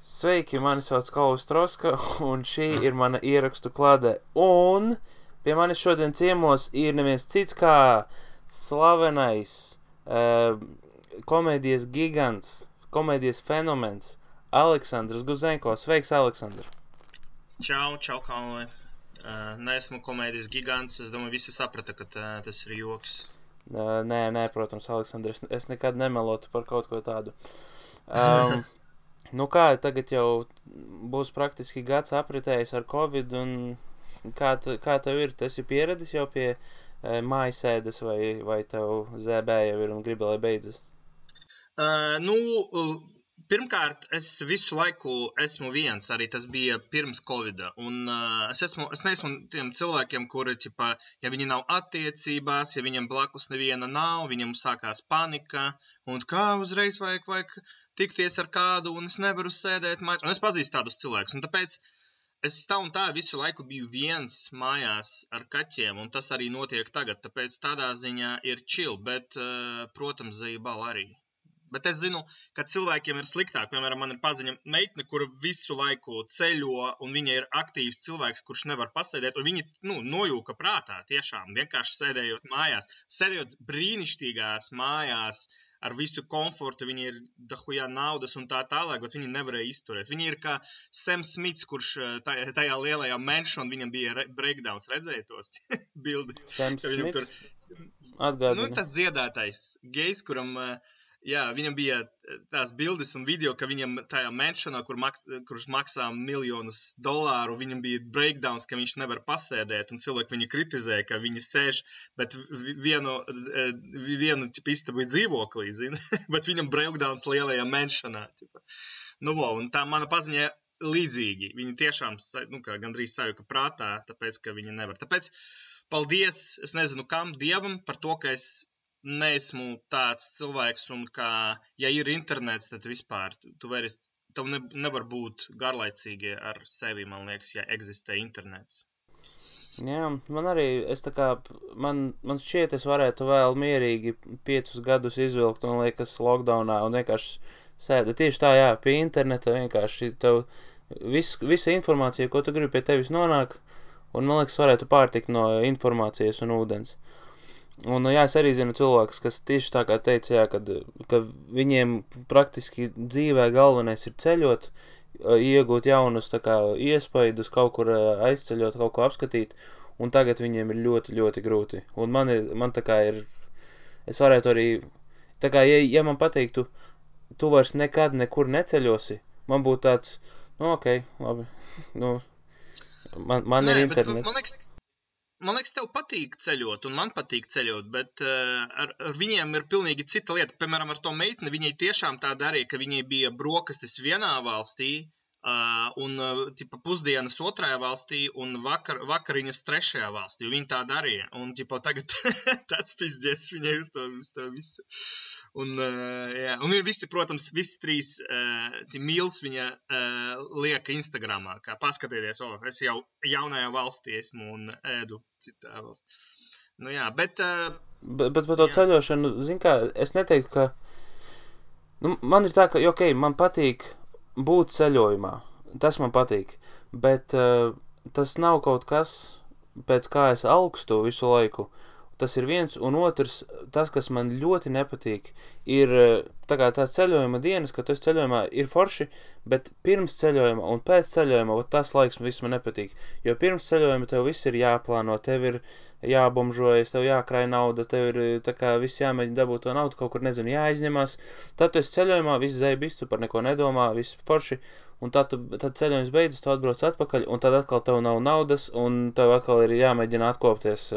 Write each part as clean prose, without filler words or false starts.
Sveiki, mani sauc Kalvis Troska, un šī ir mana ierakstu klāde. Un pie manis šodien ciemos ir neviens cits kā slavenais komēdijas gigants, komēdijas fenomens Aleksandrs Guzenko. Sveiks, Aleksandr! Čau, Kalvi. Neesmu komēdijas gigants, es domāju, visi saprata, ka tas ir joks. Nē, protams, Aleksandr, es nekad nemelotu par kaut ko tādu. Nu kā, tagad jau būs praktiski gads apritējis ar Covid, un kā tev ir? Tu esi pieradis jau pie mājasēdes, vai tev ZB jau ir un gribi, lai beidzas? Pirmkārt, es visu laiku esmu viens, arī tas bija pirms Covida, un es neesmu tiem cilvēkiem, kuri, ja viņi nav attiecībās, ja viņam blakus neviena nav, viņam sākās panika, un kā uzreiz vajag tikties ar kādu, un es nevaru sēdēt mājās, un es pazīstu tādus cilvēkus, un tāpēc es tā un tā visu laiku biju viens mājās ar kaķiem, un tas arī notiek tagad, tāpēc tādā ziņā ir chill, bet, protams, zejbal arī. Bet es zinu, ka cilvēkiem ir sliktāk. Piemēram, man ir paziņa meitne, kura visu laiku ceļo, un viņa ir aktīvs cilvēks, kurš nevar pasēdēt, un viņi nojūka prātā tiešām, vienkārši sēdējot mājās. Sēdējot brīnišķīgās mājās, ar visu komfortu, viņi ir dahujā naudas un tā tālāk, bet viņi nevarēja izturēt. Viņi ir kā Sam Smits, kurš tajā lielajā mansion, viņam bija breakdowns, redzēja tos bildi? Sam Smits? Atgādina. Tas dziedātais gejs, kuram... Jā, viņam bija tās bildes un video, ka viņam tajā mansionā, kurš maksā $1,000,000, viņam bija breakdowns, ka viņš nevar pasēdēt, un cilvēki viņu kritizē, ka viņi sēž, bet vienu istabu dzīvoklī, zini, bet viņam breakdowns lielajā mansionā. Un tā mana paziņa līdzīgi. Viņi tiešām gandrīz sajuka prātā, tāpēc, ka viņi nevar. Tāpēc paldies, es nezinu kam, Dievam par to, ka es neesmu tāds cilvēks, un ja ir internets, tad vispār tev nevar būt garlaicīgi ar sevi, man liekas, ja eksistē internets. Jā, man arī, man šķiet, es varētu vēl mierīgi 5 gadus izvilkt, un liekas, lockdownā, un vienkārši sēda. Tieši tā, jā, pie interneta vienkārši tev visa informācija, ko tu gribi pie tevis nonāk, un man liekas, varētu pārtikt no informācijas un ūdens. Un, jā, es arī zinu cilvēkus, kas tieši tā kā teica, jā, ka viņiem praktiski dzīvē galvenais ir ceļot, iegūt jaunus iespaidus, kaut kur aizceļot, kaut ko apskatīt, un tagad viņiem ir ļoti, ļoti grūti. Un man tā kā ir, es varētu arī, tā kā, ja man pateiktu, tu vairs nekad nekur neceļosi, man būtu tāds, ok, labi, man ir internets. Man liekas, tev patīk ceļot, un man patīk ceļot, bet ar viņiem ir pilnīgi cita lieta. Piemēram, ar to meitni, viņai tiešām tā darīja, ka viņai bija brokastis vienā valstī, un pusdienas otrajā valstī, un vakariņas trešajā valstī. Viņa tā darīja, un tagad tāds pizdzies viņai uz to visu. Un viņi visi, protams, visi 3 mīls viņa lieka Instagramā, kā paskatieties, es jau jaunajā valstī esmu un ēdu citā valstī. Bet par to ceļošanu, zin kā, es neteiktu, ka, man ir tā, ka, ok, man patīk būt ceļojumā, tas man patīk, bet tas nav kaut kas, pēc kā es augstu visu laiku. Tas ir viens, un otrs, tas, kas man ļoti nepatīk, ir tās ceļojuma dienas, kad tu esi ceļojumā, ir forši, bet pirms ceļojuma un pēc ceļojuma, tas laiks viss man nepatīk. Jo pirms ceļojuma tev viss ir jāplāno, tev ir jābomžojas, tev jākrāj nauda, tev ir viss jāmēģina dabūt to naudu, kaut kur, nezinu, jāizņemās. Tad tu esi ceļojumā, viss zēbis, tu par neko nedomā, viss forši, un tad ceļojums beidzas, tu atbrauc atpakaļ, un tad atkal tev nav naudas, un tev atkal ir jāmēģina atkopties.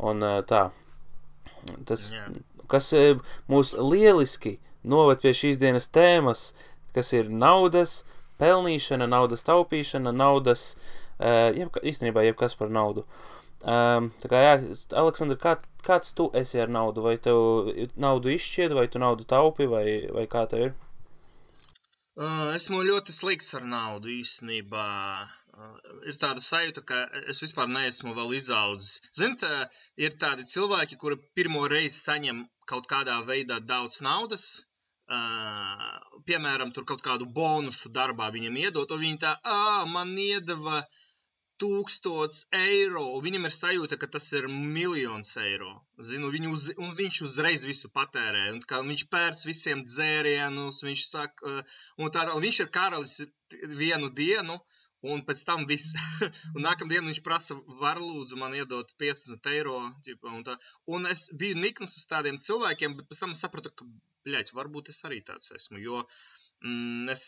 Un tā, tas, kas mūs lieliski noved pie šīs dienas tēmas, kas ir naudas pelnīšana, naudas taupīšana, naudas, īstenībā jebkas par naudu. Tā kā, jā, Aleksandr, kāds tu esi ar naudu? Vai tev naudu izšķied, vai tu naudu taupi, vai kā tev ir? Esmu ļoti slikts ar naudu īstenībā. Ir tāda sajūta, ka es vispār neesmu vēl izaudzis. Ziniet, ir tādi cilvēki, kuri pirmo reizi saņem kaut kādā veidā daudz naudas, piemēram, tur kaut kādu bonusu darbā viņam iedot, un viņi tā, man iedeva 1000 eiro, un viņam ir sajūta, ka tas ir 1 000 000 eiro. Zinu, un viņš uzreiz visu patērē, un kā viņš pērc visiem dzērienus, viņš saka, un viņš ir karalis vienu dienu, un pēc tam viss. Un nākamdienu viņš prasa, var lūdzu man iedot 50 eiro. Un es biju nikns uz tādiem cilvēkiem, bet pēc tam sapratu, ka, varbūt es arī tāds esmu, jo es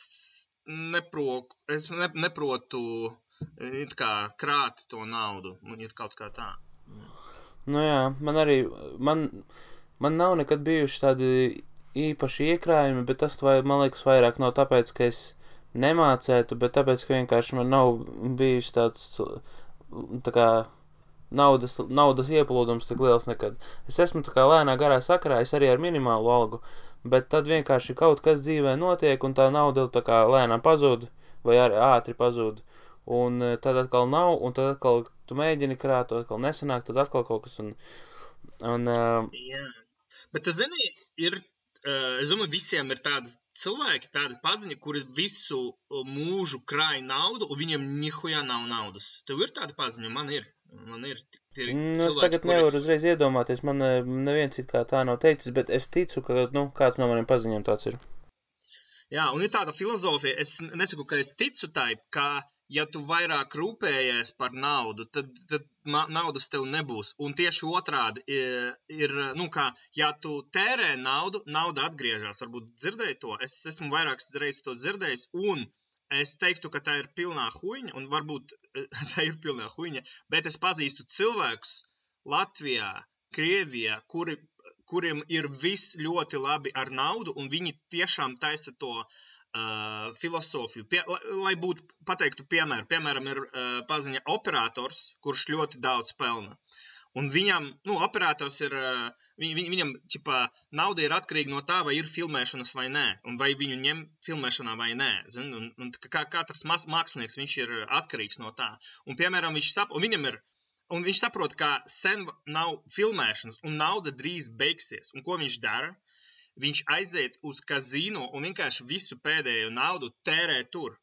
neprotu krāt to naudu. Ir kaut kā tā. Nu jā, man nav nekad bijuši tādi īpaši iekrājumi, bet tas, man liekas, vairāk nav tāpēc, ka es nemācētu, bet tāpēc, ka vienkārši man nav bijis tāds tā kā naudas ieplūdums tik liels nekad. Es esmu tā kā lēnā garā sakarā, es arī ar minimālu algu, bet tad vienkārši kaut kas dzīvē notiek, un tā nauda tā kā lēnām pazūd, vai arī ātri pazūd, un tad atkal nav, un tad atkal tu mēģini krāt, tad atkal nesanāk, tad atkal kaut kas, Jā, bet tu zini, es domāju, visiem ir tādi cilvēki, tādi paziņi, kuri visu mūžu krāj naudu, un viņiem nihujā nav naudas. Tev ir tādi paziņi? Man ir. Es tagad nevaru uzreiz iedomāties, man neviens it kā tā nav teicis, bet es ticu, ka kāds no maniem paziņiem tāds ir. Jā, un ir tāda filozofija, es nesaku, ka es ticu tai, ka ja tu vairāk rūpējies par naudu, tad naudas tev nebūs. Un tieši otrādi ir, ja tu tērē naudu, nauda atgriežas. Varbūt dzirdēji to, es esmu vairākas reizes to dzirdējis, un es teiktu, ka tā ir pilnā huiņa, un varbūt tā ir pilnā huiņa, bet es pazīstu cilvēkus Latvijā, Krievijā, kuriem ir viss ļoti labi ar naudu, un viņi tiešām taisa to filosofiju. Lai būtu pateiktu piemēru. Piemēram, ir paziņa operators, kurš ļoti daudz pelna. Un viņam, operators ir, viņam, nauda ir atkarīga no tā, vai ir filmēšanas vai nē, un vai viņu ņem filmēšanā vai nē. Zin? Un katrs mākslinieks, viņš ir atkarīgs no tā. Un, piemēram, viņš saprot, ka sen nav filmēšanas, un nauda drīz beigsies. Un ko viņš dara? Viņš aiziet uz kazino un vienkārši visu pēdējo naudu tērē tur.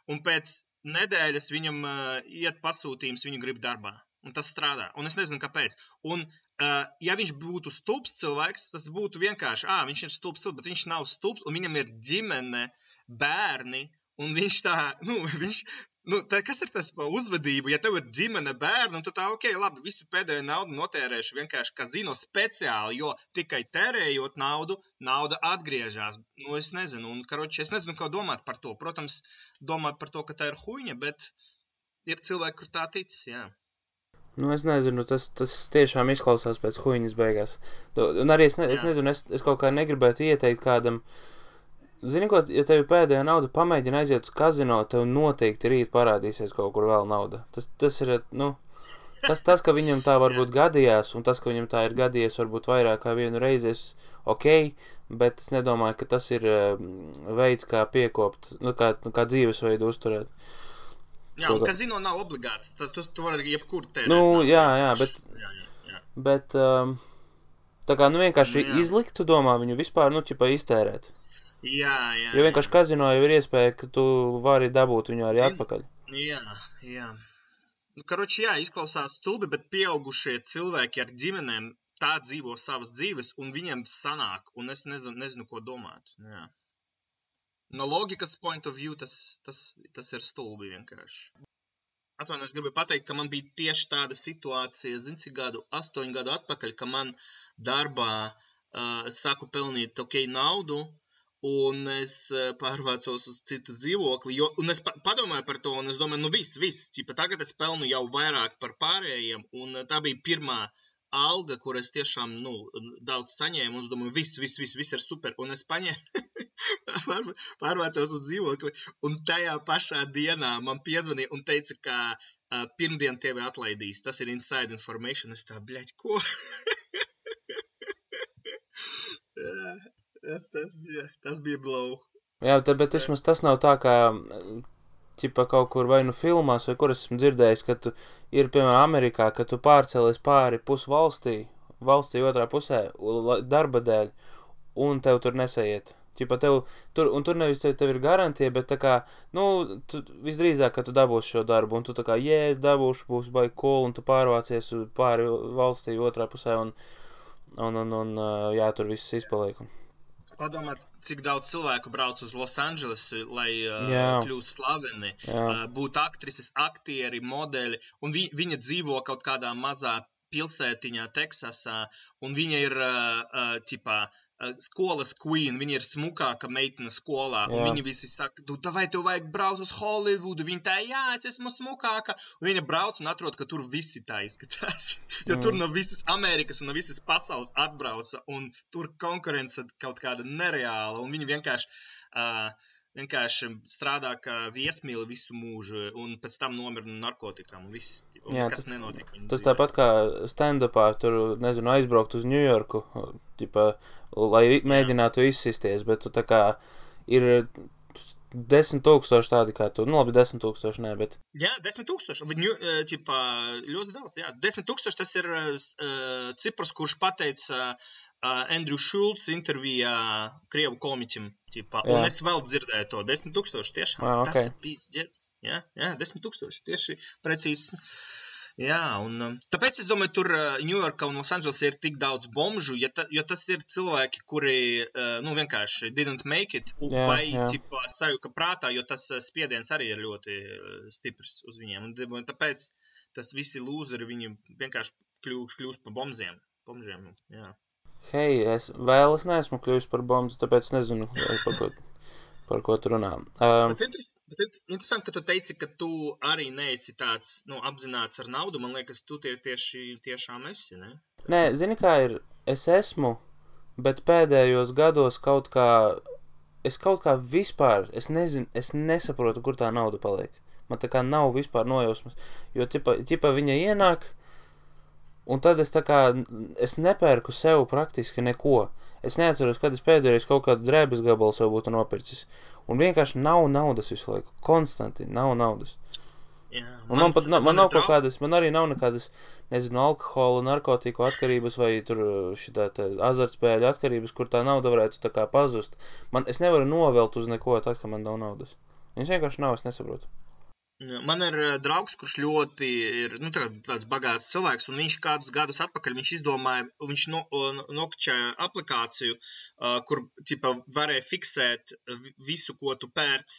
Un pēc nedēļas viņam iet pasūtījums, viņu grib darbā. Un tas strādā. Un es nezinu, kāpēc. Un, ja viņš būtu stulbs cilvēks, tas būtu vienkārši, viņš ir stulbs, bet viņš nav stulbs, un viņam ir ģimene, bērni, un viņš tā, kas ir tas pa uzvedību? Ja tev ir ģimene, bērni, un tu tā, labi, visu pēdējo naudu notērēšu vienkārši kazino speciāli, jo tikai tērējot naudu, nauda atgriežas. Es nezinu, es nezinu, ko domāt par to. Protams, domāt par to, ka tā ir huiņa, bet ir cilvēki, kur tā tic, jā. Es nezinu, tas tiešām izklausās pēc huiņas beigās. Un arī es nezinu, es kaut kā negribētu ieteikt kādam. Zini, ko, ja tev pēdējā nauda pamēģina aiziet uz kazino, tev noteikti rīt parādīsies kaut kur vēl nauda. Tas ir, tas, ka viņam tā varbūt gadījās, un tas, ka viņam tā ir gadījies varbūt vairāk kā vienu reizi, bet es nedomāju, ka tas ir veids, kā piekopt, kā dzīvesveidu uzturēt. Jā, un kazino nav obligāts, tad tu vari jebkur tērēt. Jā, bet tā kā, vienkārši izlikt, tu domā viņu vispār, iztērēt. Jā. Jo vienkārši kazino jau ir iespēja, ka tu vari dabūt viņu arī atpakaļ. Jā. Izklausās stulbi, bet pieaugušie cilvēki ar ģimenēm tā dzīvo savas dzīves, un viņiem sanāk, un es nezinu, ko domāt. Jā. No logikas point of view tas ir stulbi vienkārši. Atvainojos, gribu pateikt, ka man bija tieši tāda situācija, cik 8 gadu atpakaļ, ka man darbā sāku pelnīt naudu, un es pārvācos uz citu dzīvokli, un es padomāju par to, un es domāju, viss, tagad es pelnu jau vairāk par pārējiem, un tā bija pirmā alga, kur es tiešām, daudz saņēmu, un es domāju, viss ir super, un es pārvācos uz dzīvokli, un tajā pašā dienā man piezvanīja un teica, ka pirmdien tevi atlaidīs, tas ir inside information, es tā, ko? Tas bija blow. Jā, bet vismaz tas nav tā, kā kaut kur vai filmās, vai kur esmu dzirdējis, ka tu ir, piemēram, Amerikā, ka tu pārcēlies pāri pusvalstī, valstī otrā pusē, darba dēļ, un tev tur nesaiet. Ķipa tur nevis tev ir garantija, bet tā kā, tu visdrīzāk, ka tu dabūsi šo darbu, un tu tā kā, es dabūšu, būs baigi cool, un tu pārvācies pāri valstī otrā pusē, un tur viss izpaliek. Padomāt, cik daudz cilvēku brauc uz Los Andželesu, lai kļūst slaveni, būt aktrises, aktieri, modeļi, un viņa dzīvo kaut kādā mazā pilsētiņā Teksasā, un viņa ir, skolas queen, viņa ir smukāka meitene skolā, un viņi visi saka, vai tev vajag braukt uz Hollywoodu, viņa tā, es esmu smukāka, un viņa brauc un atrod, ka tur visi tā izskatās, jo tur no visas Amerikas un no visas pasaules atbrauca, un tur konkurence kaut kāda nereāla, un viņi vienkārši strādā kā viesmīli visu mūžu, un pēc tam nomira no narkotikām, un viss, kas nenotiek. Tas tāpat kā stand-upā, tur, nezinu, aizbraukt uz New Yorku, lai mēģinātu izsisties, bet tu tā kā ir 10,000 tādi kā tu, labi, 10,000 nē, bet... Jā, 10,000, ļoti daudz, 10,000 tas ir cipars, kurš pateica Andrew Schultz intervijā Krievu komiķim, un es vēl dzirdēju to, 10,000 tiešām, tas ir pīsģets, 10,000, tieši precīzi. Jā, un tāpēc es domāju, tur Ņujorkā un Losandželesā ir tik daudz bomžu, jo tas ir cilvēki, kuri, vienkārši didn't make it, vai sajuka prātā, jo tas spiediens arī ir ļoti stiprs uz viņiem. Un tāpēc tas visi lūzeri, viņi vienkārši kļūst par bomžiem, jā. Hei, es neesmu kļuvis par bombu, tāpēc nezinu, par ko tu runā. Bet interesanti, ka tu teici, ka tu arī neesi tāds, apzināts ar naudu. Man liekas, tu tiešām esi, ne? Nē, zini kā ir, es esmu, bet pēdējos gados kaut kā vispār, es nezinu, es nesaprotu, kur tā nauda paliek. Man tā kā nav vispār nojausmas, jo ķipa viņa ienāk, un tad es nepērku sev praktiski neko. Es neatceros, kad es pēdējais kaut kādu drēbes gabalu sev būtu nopircis. Un vienkārši nav naudas visu laiku. Konstanti nav naudas. Jā, un man nav kaut kādas, man arī nav nekādas, nezinu, alkohola, narkotiku atkarības vai tur šitā azartspēļu atkarības, kur tā nauda varētu tā kā pazust. Es nevaru novelt uz neko tad, ka man nav naudas. Viņš vienkārši nav, es nesaprotu. Man ir draugs, kurš ļoti ir tāds bagāts cilvēks, un viņš kādus gadus atpakaļ izdomāja, viņš nokačēja aplikāciju, kur varēja fiksēt visu, ko tu pērc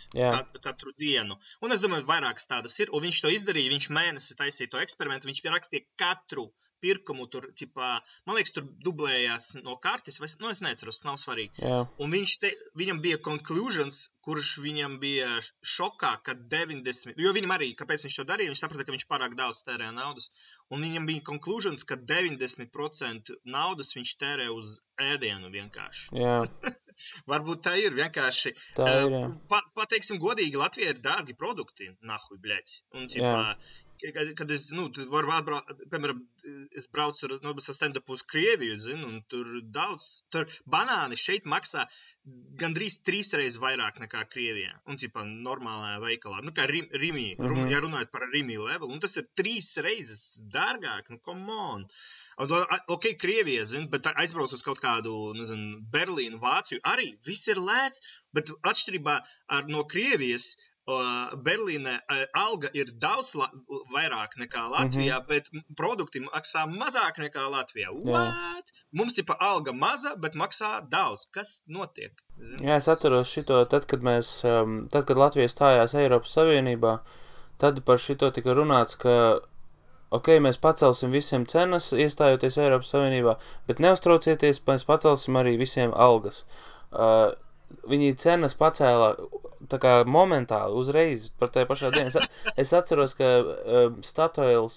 katru dienu. Un es domāju, vairākas tādas ir, un viņš to izdarīja, viņš mēnesi taisīja to eksperimentu, viņš pierakstīja katru pirkumu, tur, man liekas, tur dublējās no kartes, es neatceros, tas nav svarīgi. Jā. Un viņam bija conclusions, kurš viņam bija šokā, ka 90, jo viņam arī, kāpēc viņš to darīja, viņš saprata, ka viņš pārāk daudz tērē naudas, un viņam bija conclusions, ka 90% naudas viņš tērē uz ēdienu vienkārši. Jā. Varbūt tā ir vienkārši. Tā ir, jā. Pateiksim godīgi, Latvijā ir dārgi produkti, nahuj, bļēc. Un, kad es, piemēram, es braucu ar stand-upu uz Krieviju, un tur banāni šeit maksā gandrīz 3 reizes vairāk nekā Krievijā, un, normālajā veikalā, kā Rimī, ja runājot par Rimī level, un tas ir 3 reizes dārgāk, come on. Ok, Krievija, bet aizbrauc uz kaut kādu, Berlīnu, Vāciju, arī viss ir lēts, bet atšķirībā no Krievijas, Berlīnē alga ir daudz vairāk nekā Latvijā, bet produkti maksā mazāk nekā Latvijā. What? Mums ir alga maza, bet maksā daudz. Kas notiek? Jā, es atceros šito, tad, kad Latvija stājās Eiropas Savienībā, tad par šito tika runāts, ka ok, mēs pacelsim visiem cenas, iestājoties Eiropas Savienībā, bet neuztraucieties, mēs pacelsim arī visiem algas. Viņi cenas pacēla tā kā momentāli, uzreiz, par tajā pašā dienā. Es atceros, ka Statoils,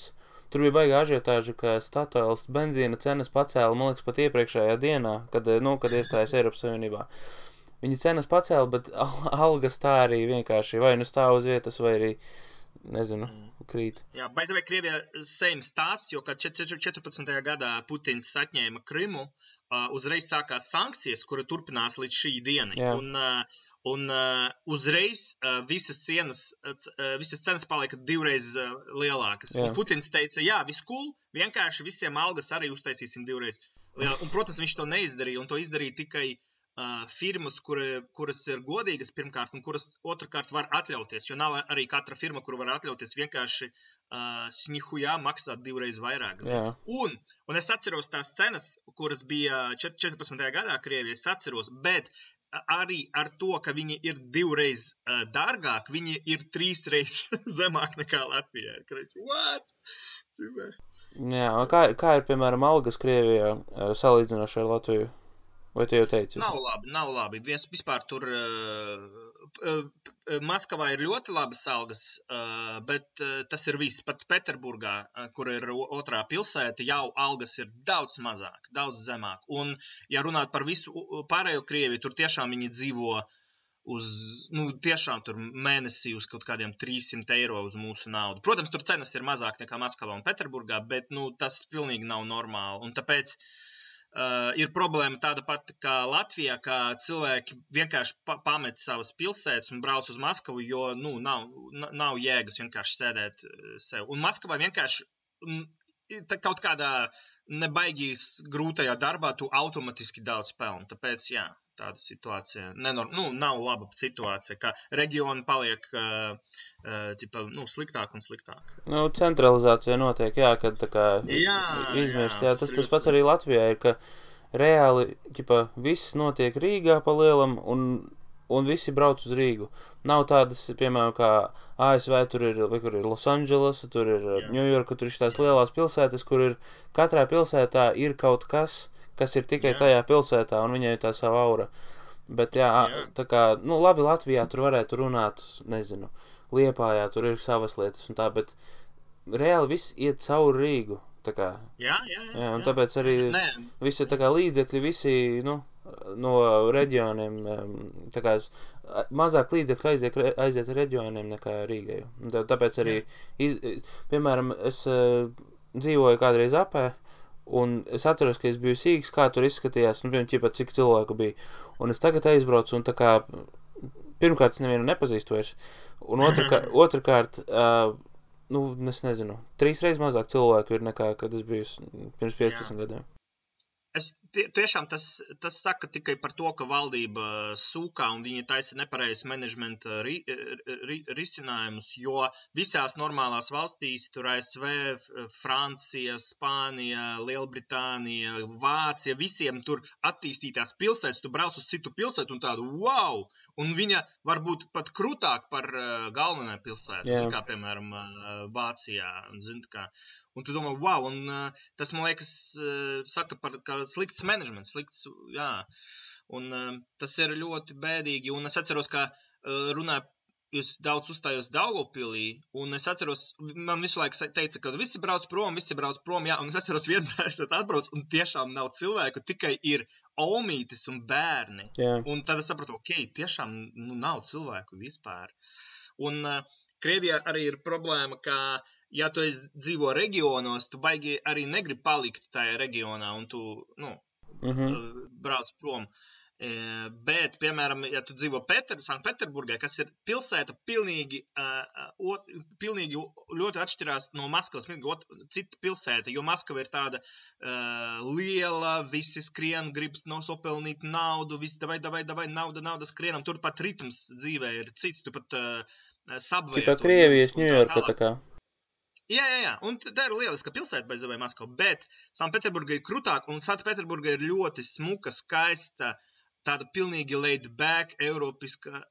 tur bija baigā ažiotāža, ka Statoils benzīna cenas pacēla, man liekas, pat iepriekšējā dienā, kad iestājas Eiropas Savienībā. Viņi cenas pacēla, bet algas tā arī vienkārši vai stāv uz vietas, vai arī, nezinu, krīt. Jā, baizavai Krievijā same stāsts, jo kad 14. gadā Putins atņēma Krimu, uzreiz sākās sankcijas, kura turpinās līdz šī dienai. Un uzreiz visas cenas palika 2 reizes lielākas. Un Putins teica, jā, viss cool, vienkārši visiem algas arī uztaisīsim 2 reizes. Un, protams, viņš to neizdarīja, un to izdarīja tikai firmas, kuras ir godīgas pirmkārt, un kuras otrkārt var atļauties, jo nav arī katra firma, kura var atļauties vienkārši snihujā maksāt 2 reizes vairāk. Un es atceros tās cenas, kuras bija 14. gadā Krievijā, es atceros, bet arī ar to, ka viņi ir 2 reizes dārgāk, viņi ir 3 reizes zemāk nekā Latvijā. What? Jā, kā ir, piemēram, algas Krievijā salīdzinoši ar Latviju? Vai tu jau teici? Nav labi. Vispār tur Maskavā ir ļoti labas algas, bet tas ir viss. Pat Peterburgā, kur ir otrā pilsēta, jau algas ir daudz mazāk, daudz zemāk. Un, ja runāt par visu pārējo Krieviju, tur tiešām viņi dzīvo tiešām tur mēnesī uz kaut kādiem 300 eiro uz mūsu naudu. Protams, tur cenas ir mazāk nekā Maskavā un Peterburgā, bet tas pilnīgi nav normāli. Un tāpēc ir problēma tāda pati kā Latvijā, ka cilvēki vienkārši pamet savas pilsētas un brauc uz Maskavu, jo nav jēgas vienkārši sēdēt sev. Un Maskavā vienkārši kaut kādā nebaigīs grūtajā darbā tu automatiski daudz pelni. Tāpēc, jā, tāda situācija nav laba situācija, ka reģioni paliek sliktāk un sliktāk. Centralizācija notiek, jā, kad tā kā izmirst. Jā, tas pats arī Latvijā ir, ka reāli viss notiek Rīgā pa lielam un visi brauc uz Rīgu. Nav tādas, piemēram, kā ASV, tur ir Losandželos, tur ir Ņujorka, tur ir tās lielās pilsētas, kur ir katrā pilsētā ir kaut kas ir tikai tajā pilsētā, un viņai ir tā sava aura. Bet, tā kā, labi, Latvijā tur varētu runāt, nezinu, Liepājā, tur ir savas lietas un tā, bet reāli viss iet cauri Rīgu, tā kā. Jā, un tāpēc arī visi, tā kā, līdzekļi, visi, no reģioniem, tā kā, mazāk līdzekļi aiziet reģioniem nekā Rīgai. Tāpēc arī, piemēram, es dzīvoju kādreiz Apē, un es atceros, ka es biju sīgs, kā tur izskatījās, cik cilvēku bija. Un es tagad aizbraucu, un tā kā, pirmkārt, es nevienu nepazīstu vairs. Un otrkārt, es nezinu, 3 reizes mazāk cilvēku ir nekā, kad es biju pirms 15 gadiem. Tiešām tas saka tikai par to, ka valdība sūkā un viņi taisa nepareizi menedžmenta risinājumus, jo visās normālās valstīs, tur ASV, Francija, Spānija, Lielbritānija, Vācija, visiem tur attīstītās pilsētas, tu brauc uz citu pilsētu un tādu wow! Un viņa var būt pat krūtāk par galvenā pilsētu, kā piemēram Vācijā, un tu domā, wow, un tas, man liekas, saka par slikts menedžments, jā, un tas ir ļoti bēdīgi, un es atceros, ka jūs daudz uzstājos Daugavpilī, un es atceros, man visu laiku teica, ka visi brauc prom, jā, un es atceros vienmēr, es atbrauc, un tiešām nav cilvēku, tikai ir omītis un bērni, un tad es sapratu, tiešām nav cilvēku vispār, un Krievijā arī ir problēma, ka ja tu dzīvo reģionos, tu baigi arī negribi palikt tajā reģionā un tu, brauc prom. Bet, piemēram, ja tu dzīvo Sanktpēterburgā, kas ir pilsēta pilnīgi ļoti atšķirās no Maskavas, cita pilsēta, jo Maskava ir tāda liela, visi skrien, gribas nosopelnīt naudu, visi davai, nauda skrienam, tur pat ritms dzīvē ir cits, tu pat subway. Tipa Krievijas, Ņujorka tā kā. Jā, un tā ir lieliska pilsēta bez vai Maskava, bet Sanktpēterburga ir krūtāk, un Sanktpēterburga ir ļoti smuka, skaista, tāda pilnīgi laid back, eiropiska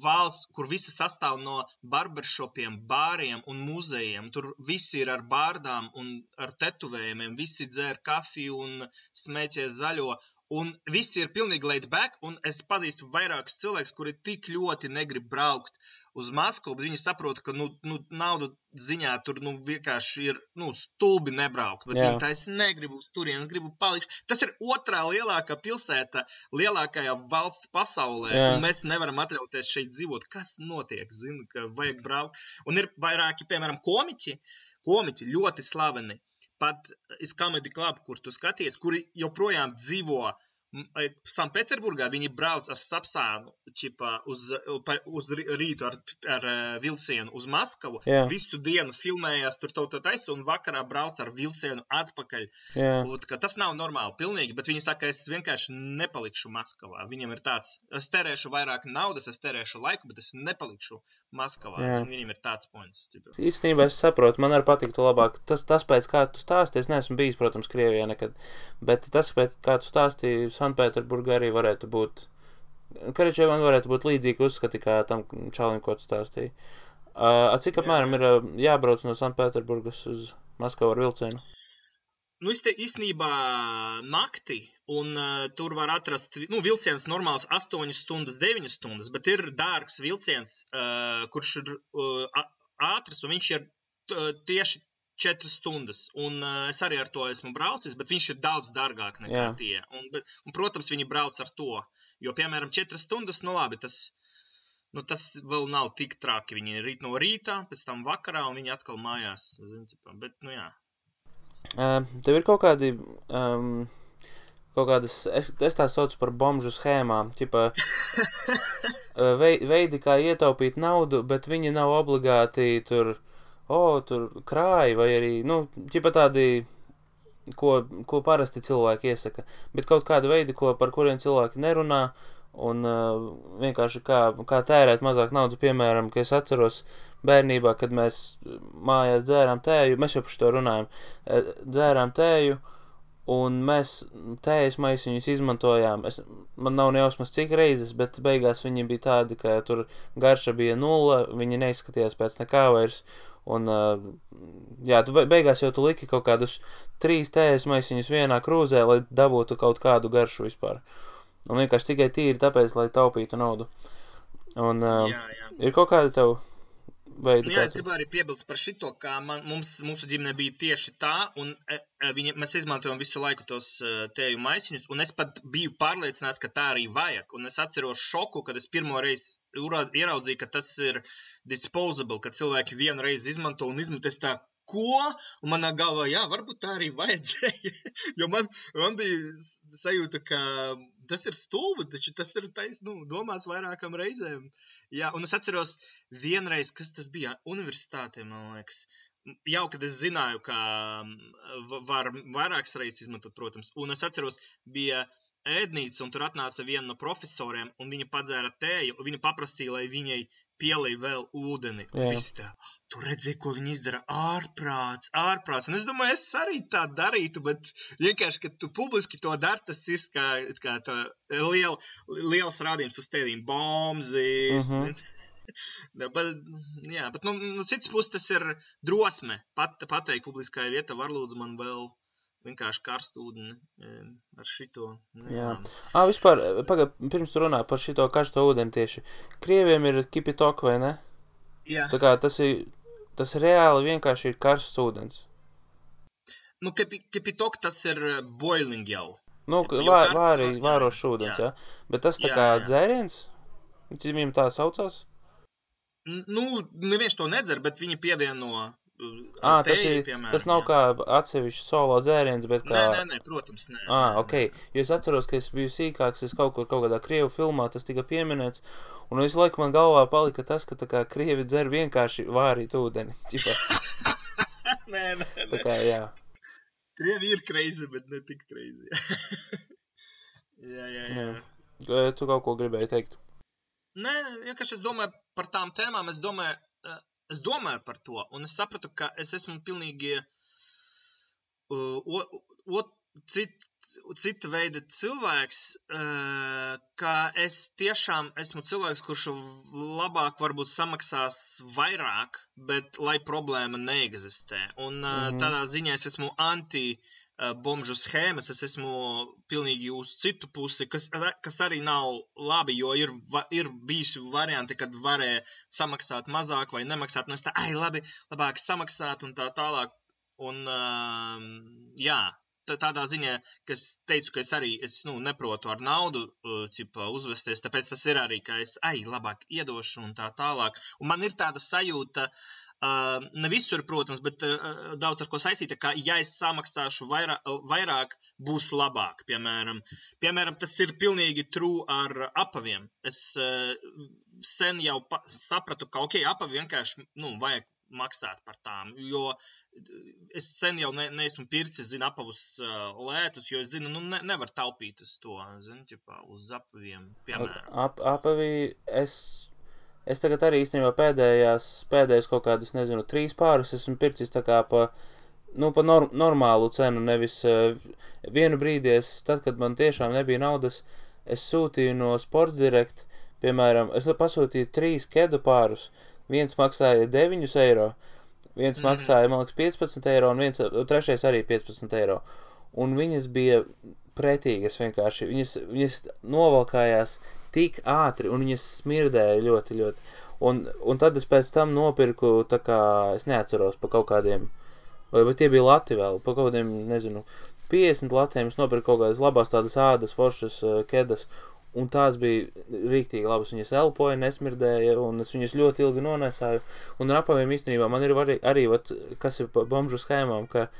valsts, kur visi sastāv no barbershopiem, bāriem un muzejiem. Tur visi ir ar bārdām un ar tetuvējumiem, visi dzer kafiju un smēķē zaļo. Un visi ir pilnīgi laid back, un es pazīstu vairākus cilvēkus, kuri tik ļoti negrib braukt uz Maskavu, bet viņi saprot, ka naudu ziņā tur vienkārši ir stulbi nebraukt. Bet viņi tā es negribu uz turienes, gribu palikt. Tas ir otrā lielākā pilsēta, lielākajā valsts pasaulē, un mēs nevaram atļauties šeit dzīvot. Kas notiek? Zinu, ka vajag braukt. Un ir vairāki, piemēram, komiķi ļoti slaveni. Pat Comedy Club, kur tu skaties, kuri joprojām dzīvo Sanktpēterburgā viņi brauc ar Sapsānu uz rītu ar vilcienu uz Maskavu. Jā. Visu dienu filmējās tur taisa un vakarā brauc ar vilcienu atpakaļ. Jā. Tas nav normāli pilnīgi, bet viņi saka, es vienkārši nepalikšu Maskavā. Viņam ir tāds, es terēšu vairāk naudas, es terēšu laiku, bet es nepalikšu Maskavā. Viņam ir tāds points. Īstenībā es saprotu, man arī patiktu labāk. Tas pēc kā tu stāsti, es neesmu bijis, protams, Krievijā nekad, bet tas pēc kā tu stāstīji, Sanktpēterburgā arī varētu būt, Karačevan varētu būt līdzīgi uzskati, kā tam čalim, ko tu stāstīji. Cik apmēram ir jābrauc no Sanktpēterburgas uz Maskavu ar vilcienu? Nu, īstenībā nakti, un tur var atrast, vilciens normāls 8 stundas, 9 stundas, bet ir dārgs vilciens, kurš ir ātrs, un viņš ir tieši 4 stundas, un es arī ar to esmu braucis, bet viņš ir daudz dārgāk nekā tie. Un, protams, viņi brauc ar to, jo, piemēram, 4 stundas, labi, tas vēl nav tik traki. Viņi rīt no rīta, pēc tam vakarā, un viņi atkal mājās. Bet, jā. Tev ir kaut kādi, es tā saucu par bomžu schēmām, veidi, kā ietaupīt naudu, bet viņi nav obligāti tur krāji, vai arī, tādi, ko parasti cilvēki iesaka, bet kaut kādi veidi, par kuriem cilvēki nerunā, un vienkārši kā tērēt mazāk naudas, piemēram, ka es atceros bērnībā, kad mēs mājās dzērām tēju, mēs jau par šo runājam, dzērām tēju, un mēs tējas maisiņus izmantojām. Man nav nejausmas cik reizes, bet beigās viņi bija tādi, ka tur garša bija 0, viņi neizskatījās pēc nekā vairs. Un, beigās jau tu liki kaut kādus 3 tējas maisiņus vienā krūzē, lai dabūtu kaut kādu garšu vispār. Un vienkārši tikai tīri tāpēc, lai taupītu naudu. Un ir kaut kāda tev veidi? Jā, es gribu arī piebilst par šito, kā mūsu ģimene bija tieši tā, un mēs izmantojam visu laiku tos tēju maisiņus, un es pat biju pārliecināts, ka tā arī vajag. Un es atceros šoku, kad es pirmo reizi ieraudzīju, ka tas ir disposable, ka cilvēki vienu reizi izmanto un izmantos tā, ko? Un manā galvā, jā, varbūt tā arī vajadzēja, jo man bija sajūta, ka tas ir stulbi, taču tas ir domāts vairākam reizēm. Jā, un es atceros vienreiz, kas tas bija universitātē, man liekas, jau, kad es zināju, ka var vairākas reizes izmantot, protams, un es atceros, bija ēdnīca, un tur atnāca viena no profesoriem, un viņa padzēra tēju, un viņa paprasīja, lai viņai pielej vēl ūdeni. Visi tā, tu redzēji, ko viņi izdara, ārprāts. Un es domāju, es arī tā darītu, bet vienkārši, kad tu publiski to dari, tas ir kā tā liels rādījums uz tevīm, bombzīs. Bet no citas puses tas ir drosme. Pateikt publiskajā vietā, var lūdzu man vēl vienkārši karstu ūdeni ar šito. Jā. Vispār, pirms tu runā par šito karsto ūdeni tieši. Krieviem ir kipitok, vai ne? Jā. Tā kā tas reāli vienkārši ir karsts ūdens. Kipitok tas ir boiling jau. Vārošs ūdens, jā. Bet tas tā kā dzēriens? Viņam tā saucās? Neviens to nedzer, bet viņi pievieno tas nav kā atsevišķi solo dzēriens, bet kā... Nē, protams, nē. Ok. Jo es atceros, ka es biju sīkāks, es kaut kādā krievu filmā tas tika pieminēts, un visu laiku man galvā palika tas, ka tā kā krievi dzer vienkārši vārīt ūdeni. Nē. Tā kā, jā. Krievi ir crazy, bet ne tik crazy. Jā. Tu kaut ko gribēji teikt? Nē, vienkārši es domāju par tām tēmām, es domāju par to, un es sapratu, ka es esmu pilnīgi cita veida cilvēks, ka es tiešām esmu cilvēks, kurš labāk varbūt samaksās vairāk, bet lai problēma neeksistē. Un tādā ziņā es esmu anti-bomžu schēmas, es esmu pilnīgi uz citu pusi, kas arī nav labi, jo ir bijusi varianti, kad varēja samaksāt mazāk vai nemaksāt, un es tā, labāk samaksāt un tā tālāk. Un jā, tādā ziņā, ka es teicu, ka es neprotu ar naudu uzvesties, tāpēc tas ir arī, ka es labāk iedošu un tā tālāk. Un man ir tāda sajūta, ne visur, protams, bet daudz ar ko saistīta, ka ja es samaksāšu vairāk, būs labāk, piemēram. Tas ir pilnīgi true ar apaviem. Es sen jau sapratu, ka apavi vienkārši, vajag maksāt par tām, jo es sen jau neesmu pircis, apavus lētus, jo es zinu, nevar taupīt uz to, uz apaviem, piemēram. Apavi, es tagad arī īstenībā pēdējais kaut kādas, 3 pārus esmu pircis tā kā pa normālu cenu, nevis vienu brīdi tad, kad man tiešām nebija naudas, es sūtīju no Sports Direct, piemēram, es pasūtīju 3 kedu pārus, viens maksāja 9 eiro, viens maksāja, man liekas, 15 eiro, un trešais arī 15 eiro. Un viņas bija pretīgas vienkārši, viņas novalkājās tik ātri, un viņas smirdēja ļoti, ļoti. Un tad es pēc tam nopirku, tā kā, es neatceros, pa kaut kādiem, vai tie bija lati vēl, pa kaut kādiem, 50 latiem es nopirku kaut kādas labās tādas ādas, foršas kedas, un tās bija rīktīgi labas, viņas elpoja, nesmirdēja, un es viņas ļoti ilgi nonesāju, un ar apaviem īstenībā man ir arī kas ir pa bomžu schēmām, ka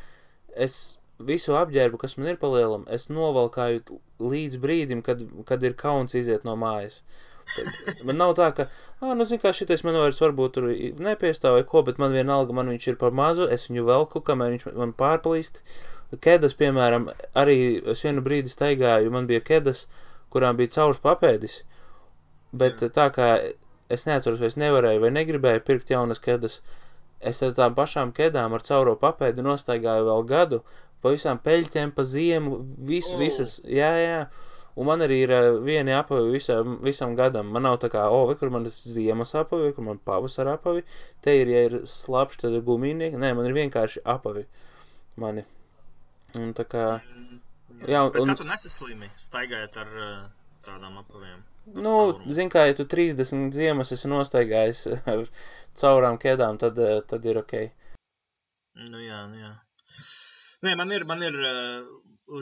es visu apģērbu, kas man ir palielam, es novalkāju līdz brīdim, kad ir kauns iziet no mājas. Tad man nav tā, ka, šitais man vairs varbūt tur nepiestāv vai ko, bet man vienalga, man viņš ir par mazu, es viņu velku, kamēr viņš man pārplīst. Kedas, piemēram, arī es vienu brīdi staigāju, man bija kedas, kurām bija caurs papēdis, bet tā kā es neatceros, vai es nevarēju vai negribēju pirkt jaunas kedas, es ar tām pašām kedām ar cauro papēdi nostaigāju vēl gadu, pa visām peļķiem, pa ziemu, visas, jā. Un man arī ir vieni apavi visam gadam. Man nav tā kā, vai kur man ir ziemas apavi, vai kur man pavasara apavi. Te ir, ja ir slapš, tad ir gumīnieki. Nē, man ir vienkārši apavi mani. Un tā kā, jā. Bet kā tu nesaslimi, staigājot ar tādām apaviem? Zin kā, ja tu 30 ziemas esi nostaigājis ar caurām kedām, tad ir okei. Jā. Nē, man ir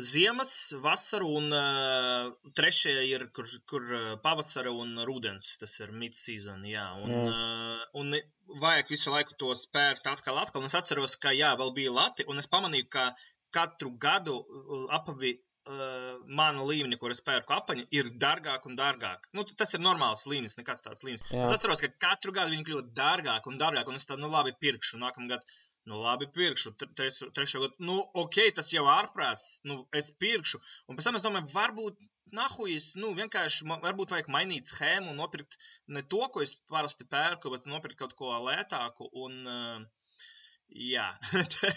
ziemas, vasaru un trešie ir, kur pavasara un rudens, tas ir mid-season, jā. Un vajag visu laiku to spērt atkal, un es atceros, ka vēl bija lati, un es pamanīju, ka katru gadu apavi mana līmeni, kur es pērku apaņu, ir dārgāk un dārgāk. Tas ir normāls līmenis, nekāds tāds līmenis. Es atceros, ka katru gadu viņi kļūt dārgāk un dārgāk, un es tā, labi pirkšu, nākamgad. Labi, pirkšu, trešo gadu, tas jau ārprāts, es pirkšu, un pēc tam es domāju, varbūt, vienkārši, varbūt vajag mainīt schēmu un nopirkt ne to, ko es parasti pērku, bet nopirkt kaut ko lētāku, un, jā,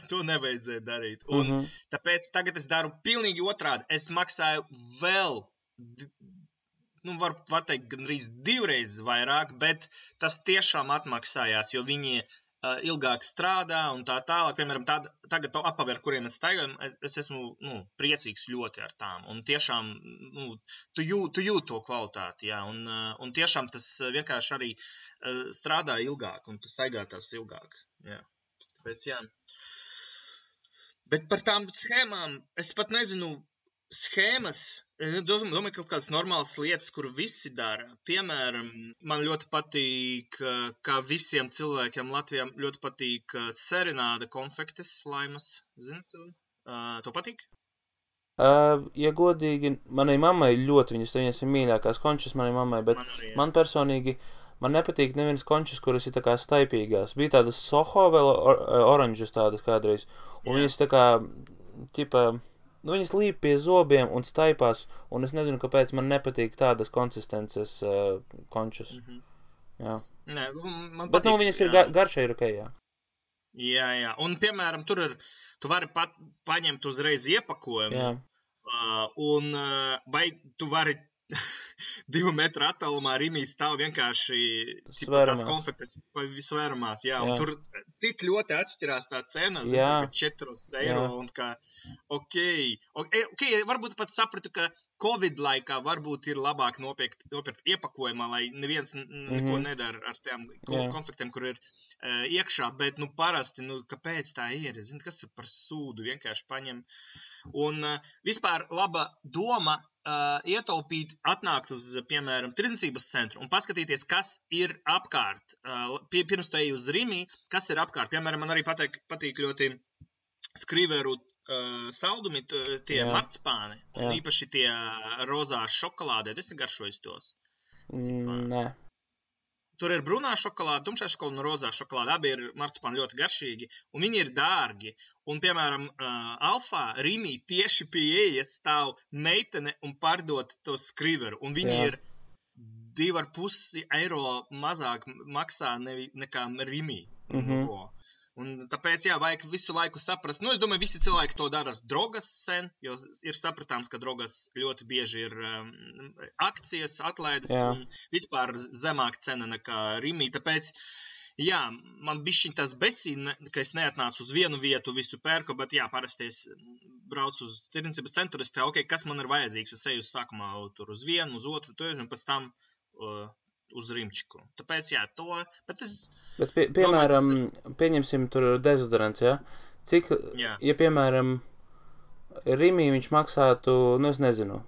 to nevajadzēja darīt, un tāpēc tagad es daru pilnīgi otrādi, es maksāju vēl, var teikt, gandrīz 2 reizes vairāk, bet tas tiešām atmaksājās, jo viņi ilgāk strādā un tā tālāk, piemēram, tagad to apavi, ar kuriem es staigāju, es esmu, priecīgs ļoti ar tām, un tiešām, tu jūt to kvalitāti, jā, un tiešām tas vienkārši arī strādā ilgāk, un tu staigā tās ilgāk, jā, tāpēc, jā. Bet par tām schēmām, es pat nezinu, schēmas, domāju, kaut kādas normālas lietas, kur visi dara. Piemēram, man ļoti patīk, kā visiem cilvēkiem Latvijā ļoti patīk Serenāda konfektes laimas. Zini tu? To patīk? Ja godīgi, manai mammai ļoti viņas ir mīļākās končas manai mammai, bet man personīgi, man nepatīk nevienas končas, kuras ir tā kā staipīgās. Bija tādas Soho vēl oranžas tādas kādreiz, un viņas tā kā, viņas līp pie zobiem un staipās, un es nezinu, kāpēc man nepatīk tādas konsistences končas. Jā. Nē, man bet, patīk. Viņas ir garšai ir okei, jā. Jā. Un, piemēram, tu vari paņemt uzreiz iepakojumu, un vai tu vari 2 metru attālumā Rimī stāv vienkārši tās konfektes svēramās, jā, un tur tik ļoti atšķirās tā cena, 4 eiro, un kā, ok, varbūt pat sapratu, ka Covid laikā varbūt ir labāk nopirkt iepakojumā, lai neviens neko nedara ar tiem konfliktiem, kur ir iekšā, bet, parasti, kāpēc tā ir? Zini, kas ir par sūdu, vienkārši paņem. Un vispār laba doma ietaupīt, atnākt uz, piemēram, tirdzniecības centru un paskatīties, kas ir apkārt. Pirms tu ej uz Rimi, kas ir apkārt. Piemēram, man arī patīk ļoti Skriveru saldumi, tie marcipāni, un īpaši tie rozā šokolādē. Es garšoju tos. Nē. Tur ir brūnā šokolāde, tumšā šokolāde un rozā šokolāde. Abi ir marcipāni ļoti garšīgi, un viņi ir dārgi. Un, piemēram, Alfā, Rīmī tieši pie ieejas stāv meitene un pārdot to Skriveru. Un viņi ir 2,5 eiro mazāk maksā nekā Rīmī. Un tāpēc, vajag visu laiku saprast. Es domāju, visi cilvēki to dara drogas sen, jo ir sapratāms, ka drogas ļoti bieži ir akcijas, atlaides un vispār zemāk cena nekā Rīmī. Tāpēc, man bišķiņ tas besīna, ka es neatnācu uz vienu vietu, visu pērku, bet parasti es braucu uz tirdzniecības centru, es teiktu, kas man ir vajadzīgs. Es eju sākumā tur uz vienu, uz otru, un pēc tam uz Rimčiku. Tāpēc, to, bet es... Bet, piemēram, pieņemsim tur dezodorants, Cik, ja, piemēram, Rimī viņš maksātu, es nezinu,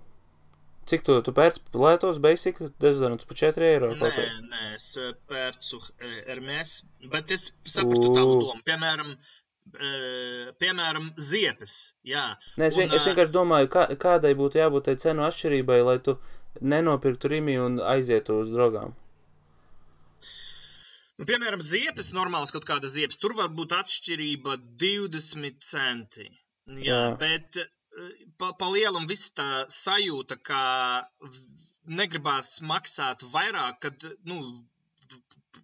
cik tu pērc lētos basic dezodorants par 4 eiro? Nē, es pērcu Hermes, bet es sapratu tavu domu. Piemēram, ziepes, Nē, es vienkārši domāju, kādai būtu jābūt tai cenu atšķirībai, lai tu nenopirktu Rimi un aizietu uz drogām. Piemēram, ziepes, normāls kaut kāda ziepes, tur var būt atšķirība 20 centi. Bet pa lielam viss tā sajūta, ka negribās maksāt vairāk, kad,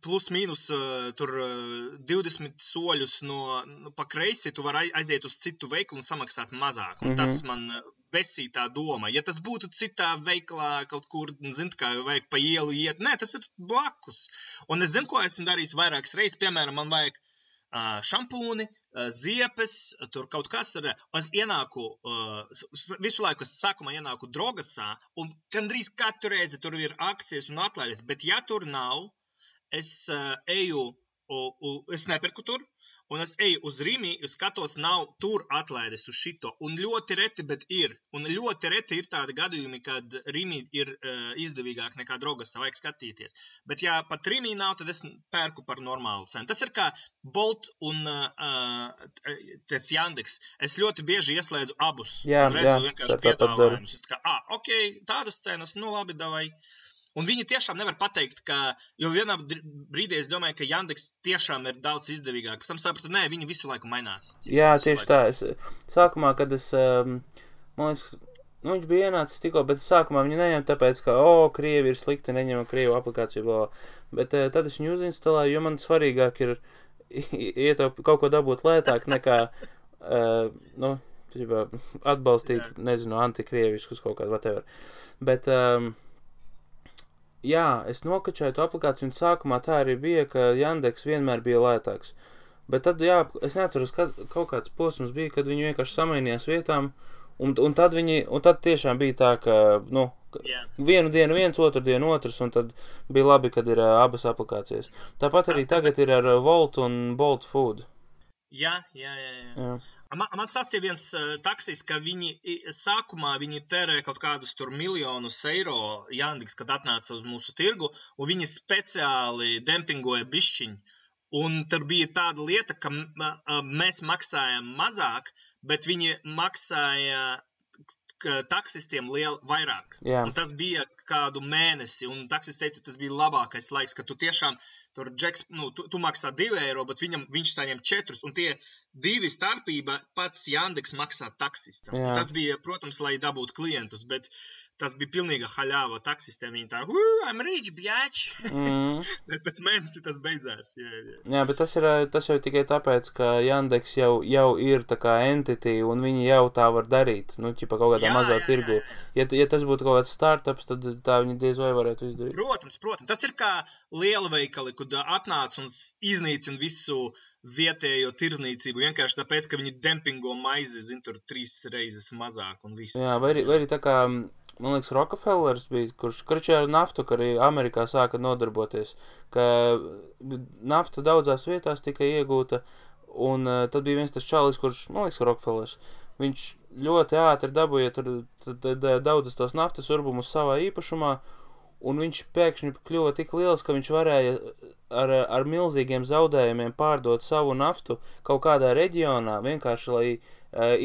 plus mīnus tur 20 soļus pa kreisi, tu vari aiziet uz citu veikalu un samaksāt mazāk. Un tas man besīja tā doma. Ja tas būtu citā veikalā kaut kur, kā vajag pa ielu iet, nē, tas ir blakus. Un es zinu, ko esmu darījis vairākas reizes. Piemēram, man vajag šampūni, ziepes, tur kaut kas ir. Es ienāku, visu laiku es sākumā ienāku drogasā, un gandrīz katru reizi tur ir akcijas un atlaides, bet ja tur nav, es nepirku tur, un es eju uz Rimi, skatos, nav tur atlaides uz šito, un ļoti reti, bet ir. Un ļoti reti ir tādi gadījumi, kad Rimi ir izdevīgāk nekā drogasā, vajag skatīties. Bet ja pat Rimi nav, tad es pērku par normālu cenu. Tas ir kā Bolt un Yandex. Es ļoti bieži ieslēdzu abus. Redzu vienkārši piedāvājumus. Ok, tādas cenas, labi, davai. Un viņi tiešām nevar pateikt, jo vienā brīdī es domāju, ka Yandex tiešām ir daudz izdevīgāk. Pēc tam sapratu, nē, viņi visu laiku mainās. Tieši tā. Sākumā, kad es, man liekas, viņš bija ienācis tikko, bet sākumā viņu neņem tāpēc, ka, Krievi ir slikti, neņem Krievu aplikāciju, bla. Bet tad es viņu uzinstalēju, jo man svarīgāk ir kaut ko dabūt lētāk nekā, atbalstīt, nezinu, antikrieviskus kaut kādu, whatever. Bet, es nokačēju to aplikāciju, un sākumā tā arī bija, ka Yandex vienmēr bija lētāks. Bet tad, es neatceros, kaut kāds posms bija, kad viņi vienkārši samainījās vietām, un tad tiešām bija tā, ka, vienu dienu viens, otru dienu otrs, un tad bija labi, kad ir abas aplikācijas. Tāpat arī tagad ir ar Volt un Bolt Food. Jā. Man stāstīja viens taksis, ka sākumā viņi tērē kaut kādus tur miljonus eiro Yandex, kad atnāca uz mūsu tirgu, un viņi speciāli dempingoja bišķiņu. Un tur bija tāda lieta, ka mēs maksājam mazāk, bet viņi maksāja taksistiem vairāk. Un tas bija kādu mēnesi, un taksis teica, tas bija labākais laiks, ka tu tiešām tur tu maksā 2 eiro, bet viņš saņem 4, un tie 2 starpība pats Yandex maksā taksistam. Tas bija, protams, lai dabūtu klientus, bet tas bija pilnīga haļāva taksistiem. Viņi tā, I'm rich, bjāč! Bet pēc mēnesi tas beidzās. Jā, bet tas jau tikai tāpēc, ka Yandex jau ir tā kā entity, un viņi jau tā var darīt, ķipa kaut kādā mazā tirgu. Ja tas būtu kaut kāds startups, tad tā viņi diez vai varētu izdarīt. Protams. Tas ir kā liela veikali, kad atnāc un iznīcina visu vietējo tirdzniecību, vienkārši tāpēc, ka viņi dempingo maizi, tur 3 reizes mazāk un viss. Jā, vai arī tā kā man liekas, Rockefellers bija, kurš ar naftu, ka arī Amerikā sāka nodarboties, ka nafta daudzās vietās tika iegūta, un tad bija viens tas čalis, kurš, man liekas, Rockefellers, viņš ļoti ātri dabūja daudzas tos naftas urbumus savā īpašumā, un viņš pēkšņi kļuva tik liels, ka viņš varēja ar milzīgiem zaudējumiem pārdot savu naftu kaut kādā reģionā, vienkārši, lai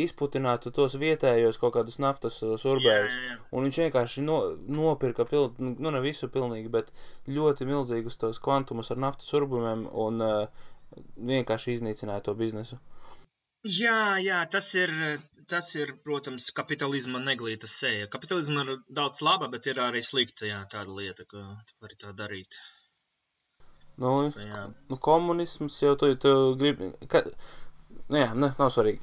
izputinātu tos vietējos kaut kādus naftas urbējus. Un viņš vienkārši nopirka, ne visu pilnīgi, bet ļoti milzīgus tos kvantumus ar naftas urbumiem un vienkārši iznīcināja to biznesu. Jā, tas ir, protams, kapitalisma neglīta sēja. Kapitalisma ir daudz laba, bet ir arī slikta, tāda lieta, ka var tā darīt. Komunisms jau tu gribi... nav svarīgi.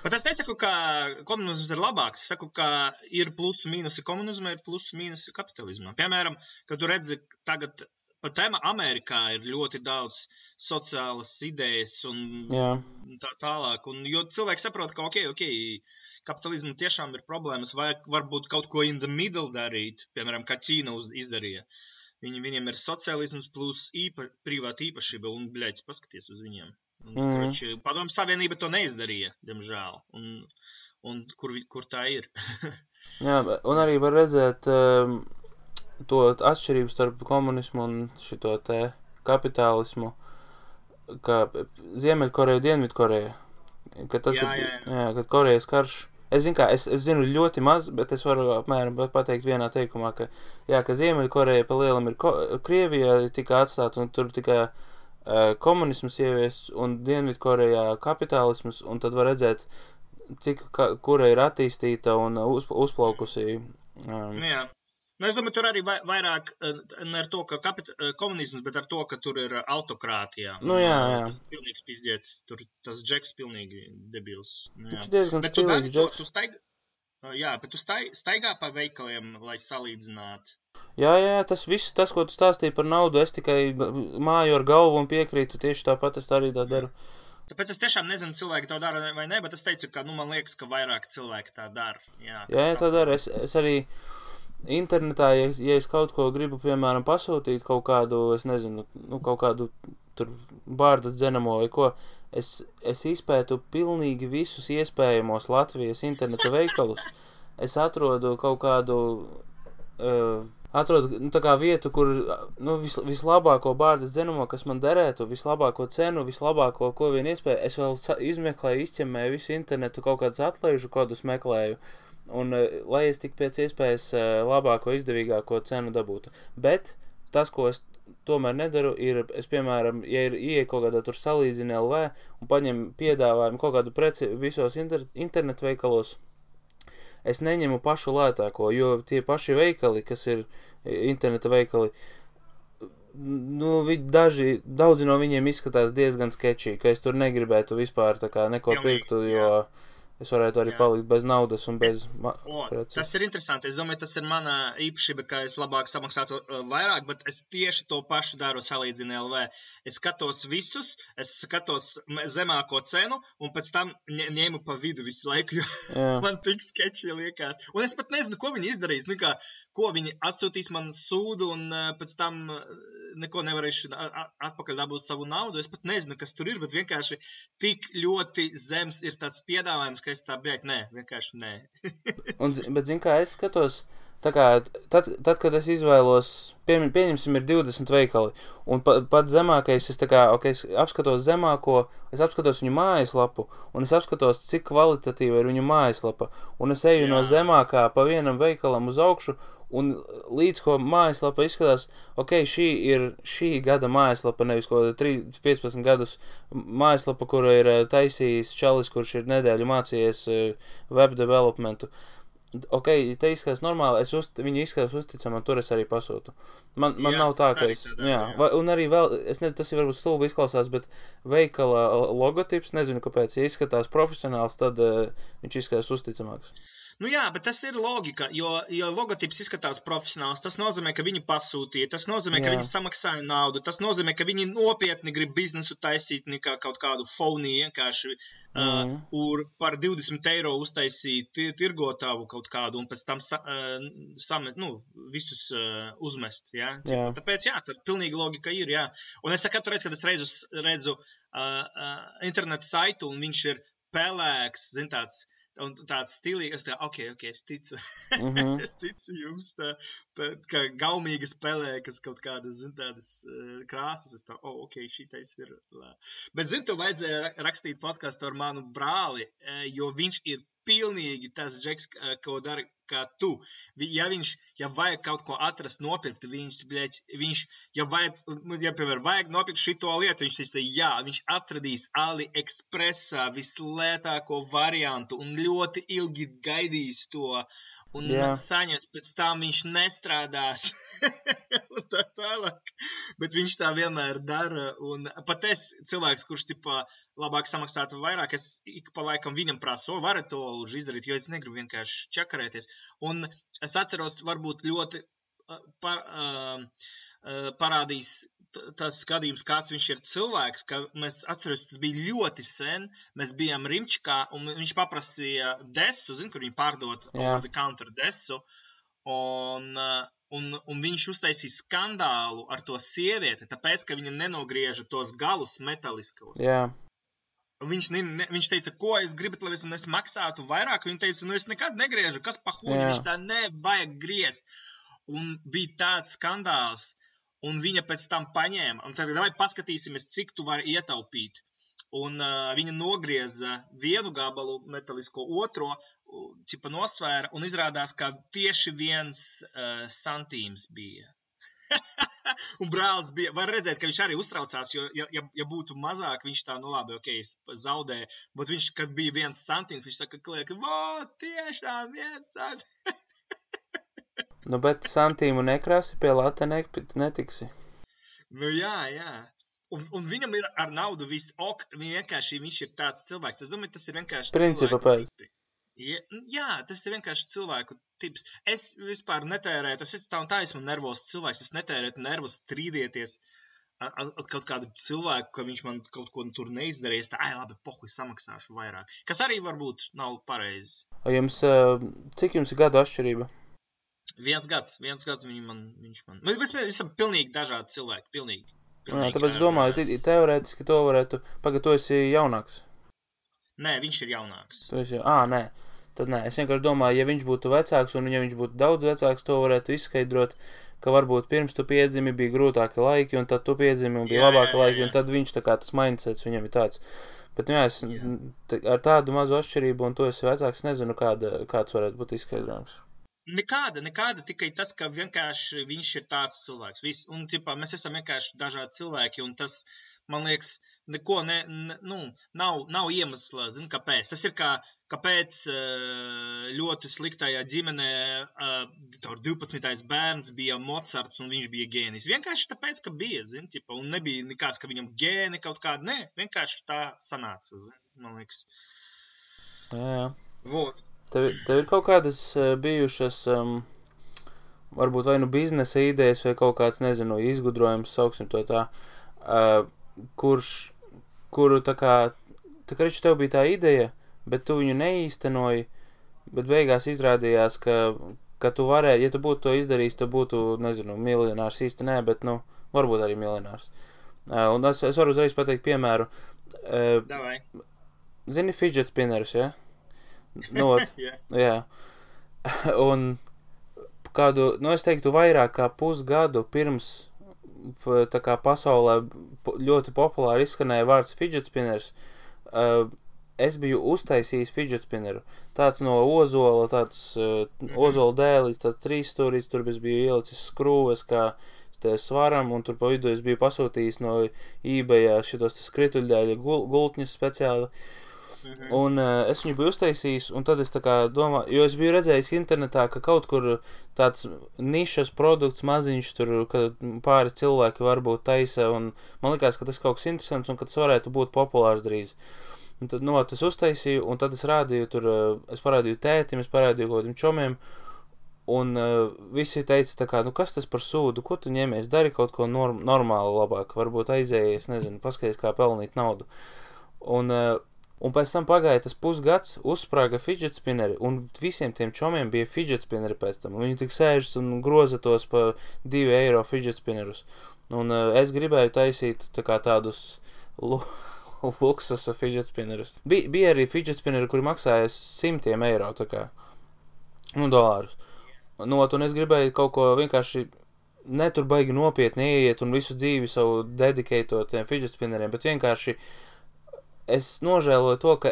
Bet es nesaku, ka komunisms ir labāks. Es saku, ka ir plusi mīnusi komunismā, ir plusi mīnusi kapitalismā. Piemēram, kad tu redzi tagad... Pat Amerikā ir ļoti daudz sociālas idejas un tā tālāk. Un, jo cilvēki saprot, ka kapitalismu tiešām ir problēmas, vai varbūt kaut ko in the middle darīt, piemēram, kā Ķīna izdarīja. Viņiem ir sociālisms plus privāta īpašība, un, paskaties uz viņiem. Padomju Savienība to neizdarīja, diemžēl. Un kur tā ir? Jā, un arī var redzēt... to atšķirību starp komunismu un šito te kapitālismu, kā Ziemeļkoreja, Dienvidkoreja. Kad Korejas karš, es zinu ļoti maz, bet es varu apmēram pateikt vienā teikumā, ka Ziemeļkoreja pa lielam ir Krievijā tika atstāta un tur tikai komunisms ievies un Dienvidkorejā kapitālisms, un tad var redzēt, kura ir attīstīta un uzplaukusi. Es domāju, tur arī vairāk ne ar to, ka komunisms, bet ar to, ka tur ir autokrātijā. Jā. Tas pilnīgs pizdiets. Tur tas Džeks pilnīgi debils. Viņš diezgan stilīgs Džeks. Bet tu staigā pa veikaliem, lai salīdzinātu. Jā, tas viss, ko tu stāstīji par naudu, es tikai māju ar galvu un piekrītu, tieši tāpat es arī tā daru. Tāpēc es tiešām nezinu, cilvēki to dara vai ne, bet es teicu, ka man liekas, ka vairāk cilvēki tā dara. Jā, tā dara. Es arī... Internetā, ja es kaut ko gribu, piemēram, pasūtīt kaut kādu, es nezinu, kaut kādu tur bārdas dzenamo vai ko, es izpētu pilnīgi visus iespējamos Latvijas interneta veikalus. Es atrodu kaut kādu, tā kā vietu, kur, vislabāko bārdas dzenamo, kas man derētu, vislabāko cenu, vislabāko, ko vien iespēja, es vēl izmeklēju, izķemmēju visu internetu, kaut kādus atlaižu kodus meklēju. Un lai es tik pēc iespējas labāko, izdevīgāko cenu dabūtu. Bet tas, ko es tomēr nedaru, ir, es piemēram, ja ir ieeja kaut kādā tur salīdzina LV un paņem piedāvājumu kaut kādu preci visos internetu veikalos, es neņemu pašu lētāko, jo tie paši veikali, kas ir interneta veikali, daudzi no viņiem izskatās diezgan sketčī, ka es tur negribētu vispār tā kā neko pirktu, jo... Es varētu arī palikt bez naudas un bez preces. Tas ir interesanti. Es domāju, tas ir mana īpašība, ka es labāk samaksātu vairāk, bet es tieši to pašu daru salīdzina LV. Es skatos visus, es skatos zemāko cenu un pēc tam ņēmu pa vidu visu laiku, jo man tik sketči liekas. Un es pat nezinu, ko viņi izdarīs. Ko viņi atsūtīs man sūdu un pēc tam neko nevarēšu atpakaļ dabūt savu naudu. Es pat nezinu, kas tur ir, bet vienkārši tik ļoti zems ir tāds piedāvājums, ka es tā vienkārši nē. Bet zin kā, es skatos, tā kā, tad kad es izvēlos, pieņemsim ir 20 veikali, un pat zemākais, es apskatos zemāko, es apskatos viņu mājaslapu, un es apskatos, cik kvalitatīva ir viņu mājaslapa, un es eju no zemākā pa vienam veikalam uz augšu, un līdz ko mājaslapa izskatās, šī ir šī gada mājaslapa, nevis ko 15 gadus mājaslapa, kura ir taisījis čalis, kurš ir nedēļu mācījies web developmentu. Te izskatās normāli, viņu izskatās uzticamā, tur es arī pasūtu. Man nav tā, ka es... un arī vēl, es nezinu, tas ir varbūt stulbi izklausās, bet veikala logotips, nezinu, kāpēc, ja izskatās profesionāls, tad viņš izskatās uzticamāks. Nu jā, bet tas ir logika, jo logotips izskatās profesionāls. Tas nozīmē, ka viņi pasūtīja, tas nozīmē, ka viņi samaksāja naudu, tas nozīmē, ka viņi nopietni grib biznesu taisīt nekā kaut kādu phony vienkārši par 20 eiro uztaisīt tirgotāvu kaut kādu un pēc tam visus uzmest. Ja? Tāpēc, tad pilnīgi logika ir, jā. Un es katru reizi, kad es redzu internetu saitu un viņš ir pelēks, tāds stilīgs, es ticu. Es ticu jums, kā gaumīgas pelēkas kaut kādas, tādas krāsas. Es šitais ir. Bet, tu vajadzēja rakstīt podcastu ar manu brāli, jo viņš ir pilnīgi tas džeks, ko dara kā tu. Ja vajag kaut ko atrast, nopirkt, piemēram, vajag nopirkt šito lietu, viņš atradīs AliExpressā vislētāko variantu un ļoti ilgi gaidīs to. Un saņems, pēc tam viņš nestrādās. Un tā tālāk. Bet viņš tā vienmēr dara. Un pat es cilvēks, kurš labāk samaksātu vairāk, es ik pa laikam viņam prasu, varat to izdarīt, jo es negribu vienkārši čakarēties. Un es atceros, varbūt ļoti parādīs tas skatījums, kāds viņš ir cilvēks, ka mēs atceros, tas bija ļoti sen, mēs bijām Rimčikā, un viņš paprasīja desu, kur viņi pārdot over the counter desu, un viņš uztaisīja skandālu ar to sievieti, tāpēc, ka viņa nenogrieža tos galus metaliskos. Viņš teica, ko es gribat, lai es maksātu vairāk, viņa teica, es nekad negriežu, kas pa huņu, viņš tā nevajag griezt. Un bija tāds skandāls, un viņa pēc tam paņēma, un tad vai paskatīsimies, cik tu vari ietaupīt. Un viņa nogrieza vienu gabalu metalisko, otro, nosvēra, un izrādās, ka tieši 1 santīms bija. Un brālis bija, var redzēt, ka viņš arī uztraucās, jo, ja būtu mazāk, viņš tā, labi, es zaudēju, bet viņš, kad bija 1 santīms, viņš saka, klieka, tiešām 1 santīms. Bet santīmu nekrasi pie lata netiksi. Jā. Un viņam ir ar naudu viss viņš ir tāds cilvēks. Es domāju, tas ir vienkārši principa pēc. Jā, tas ir vienkārši cilvēku tips. Es vispār netērētu, es esmu nervos cilvēks, es netērētu nervus strīdieties ar kaut kādu cilvēku, ka viņš man kaut ko tur neizdarīs. Labi, pohuj, samaksāšu vairāk. Kas arī varbūt nav pareizi. Cik jums ir gadu atšķirība? 1 gads viņš man. Mēs esam pilnīgi dažādi cilvēki, pilnīgi. Tāpēc domāju, teorētiski to varētu, tu esi jaunāks. Nē, viņš ir jaunāks. Nē. Tad nē, es vienkārši domāju, ja viņš būtu vecāks un ja viņš būtu daudz vecāks, to varētu izskaidrot, ka varbūt pirms tu piedzimi bija grūtāki laiki un tad tu piedzimi un bija labāki laiki un tad viņš tas mindsets viņam ir tāds. Bet es ar tādu mazu atšķirību un tu esi vecāks, nezinu, kāds varētu būt izskaidrojums. Nekāda, tikai tas, ka vienkārši viņš ir tāds cilvēks. Un, mēs esam vienkārši dažādi cilvēki, un tas, man liekas, neko nav iemesla, kāpēc. Tas ir kāpēc ļoti sliktajā ģimenē 12. bērns bija Mozarts un viņš bija gēnijs. Vienkārši tāpēc, ka bija, un nebija nekāds, ka viņam gēni kaut kāda, ne, vienkārši tā sanāca, man liekas. Jā. Vot. Tev ir kaut kādas bijušas, varbūt vai biznesa idejas vai kaut kāds, nezinu, izgudrojums, sauksim to tā, kuru tā kā tev bija tā ideja, bet tu viņu neīstenoji, bet beigās izrādījās, ka tu varēji, ja tu būtu to izdarījis, tu būtu, nezinu, miljonārs īsti nē, bet, varbūt arī miljonārs. Un es varu uzreiz pateikt piemēru. Davai. Zini fidget spinnerus, ja? Jā. Un kādu, es teiktu, vairāk kā pusgadu pirms tā kā pasaulē ļoti populāri izskanēja vārds fidget spinners, es biju uztaisījis fidget spinneru. Tāds no ozola, ozola dēlis, tāds 3 stūrīts, tur es biju ielicis skrūves kā svaram, un tur pa vidu es biju pasūtījis no eBayā šitos skrituļdēļa gultņus speciāli. Un es viņu biju uztaisījis, un tad es tā kā domāju, jo es biju redzējis internetā, ka kaut kur tāds nišas produkts maziņš tur, ka pāri cilvēki varbūt taisa, un man likās, ka tas kaut kas interesants, un ka tas varētu būt populārs drīz. Un tad, es uztaisīju, un tad es rādīju tur, es parādīju tētim, es parādīju kaut kādiem čomiem, un visi teica tā kā, kas tas par sūdu, ko tu ņemies, dari kaut ko normāli labāk, varbūt aizējies, nezinu, paskaties, kā pelnīt naudu. Un pēc tam pagāja tas pusgads, uzsprāga fidget spinneri, un visiem tiem čomiem bija fidget spinneri pēc tam. Viņi tik sēžas un groza tos pa 2 eiro fidget spinnerus. Un es gribēju taisīt tā kā tādus luksusa fidget spinnerus. Bija arī fidget spinneri, kuri maksāja 100 eiro, tā kā, dolārus. Un es gribēju kaut ko vienkārši netur baigi nopietni ieiet un visu dzīvi savu dedikētot tiem fidget spinneriem, bet vienkārši es nožēloju to, ka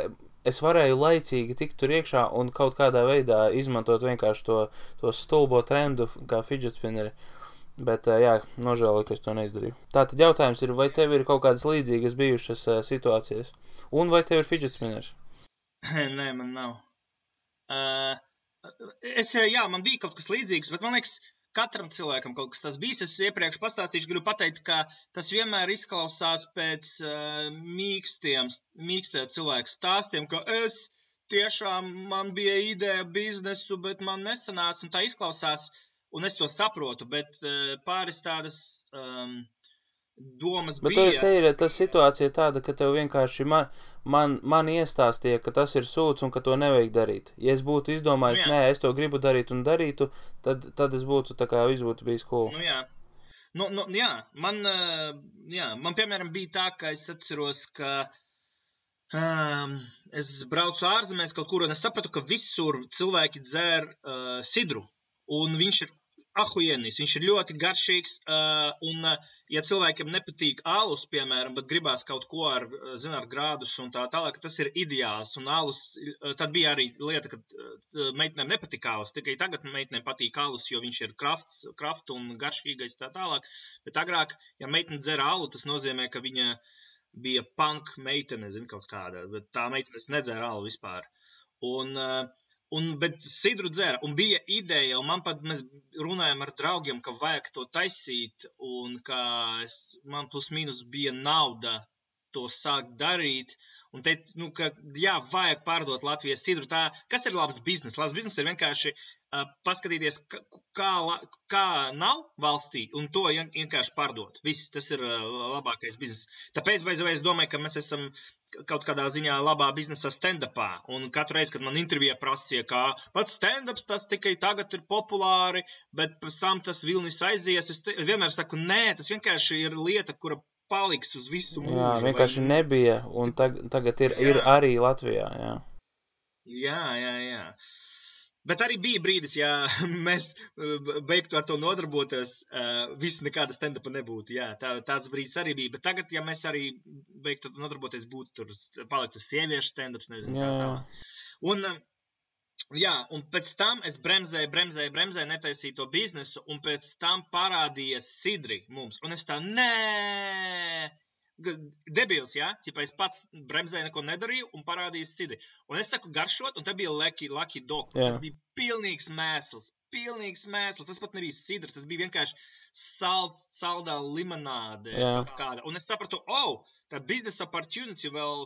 es varēju laicīgi tikt tur iekšā un kaut kādā veidā izmantot vienkārši to stulbo trendu kā fidget spinneri. Bet, jā, nožēloju, ka es to neizdarīju. Tātad jautājums ir, vai tev ir kaut kādas līdzīgas bijušas situācijas? Un vai tev ir fidget spinners? Nē, man nav. Man bija kaut kas līdzīgs, bet man liekas, katram cilvēkam kaut kas tas bijis. Es iepriekš pastāstīšu, gribu pateikt, ka tas vienmēr izklausās pēc mīkstiem cilvēku stāstiem, ka man bija ideja biznesu, bet man nesanāca, un tā izklausās, un es to saprotu, bet pāris tādas domas bet bija. Bet te ir tā situācija tāda, ka tev vienkārši man iestāstīja, ka tas ir sūds un ka to nevajag darīt. Ja es būtu izdomājis, nē, es to gribu darīt un darītu, tad es būtu tā kā viss būtu bijis cool. Man piemēram bija tā, ka es atceros, ka es braucu ārzemēs kaut kur, un es sapratu, ka visur cilvēki dzer sidru, un viņš ir ahujienis, viņš ir ļoti garšīgs, un ja cilvēkiem nepatīk alus, piemēram, bet gribās kaut ko ar grādus un tā tālāk, tas ir ideāls, un alus, tad bija arī lieta, ka meitenēm nepatika alus, tikai tagad meitenēm patīk alus, jo viņš ir kraft un garšīgais tā tālāk, bet agrāk, ja meitene dzer alu, tas nozīmē, ka viņa bija punk meitene, kaut kāda, bet tā meitenes nedzer alu vispār. Bet sidru dzēra, un bija ideja, un mēs runājam ar draugiem, ka vajag to taisīt, un ka man plus mīnus bija nauda to sākt darīt, un teica, ka vajag pārdot Latvijas sidru. Kas ir labs biznes? Labs biznes ir vienkārši paskatīties, kā nav valstī, un to vienkārši pārdot. Viss, tas ir labākais biznes. Tāpēc, es domāju, ka mēs esam kaut kādā ziņā labā biznesā stand-upā, un katru reizi, kad man intervijā prasīja, ka pats stand-ups tas tikai tagad ir populāri, bet pēc tam tas vilnis aizies, es vienmēr saku, nē, tas vienkārši ir lieta, kura paliks uz visu mūžu. Jā, vienkārši nebija, un tagad ir arī Latvijā, jā. Jā. Bet arī bija brīdis, ja mēs beigtu ar to nodarboties, viss nekāda stand-upa nebūtu. Jā, tāds brīdis arī bija. Bet tagad, ja mēs arī beigtu nodarboties, būtu tur paliktu sieviešu stand-ups, nezinu, kā tā. Un pēc tam es bremzēju, netaisīju to biznesu, un pēc tam parādījies sidri mums. Un es tā, debils, jā? Ķipa es pats bremzēju, neko nedarīju un parādījis sidri. Un es saku garšot, un te bija Lucky Dog. Tas bija pilnīgs mēsls. Tas pat nebija sidrs, tas bija vienkārši saldā limonāde. Kāda. Un es sapratu, tā biznesa opportunity vēl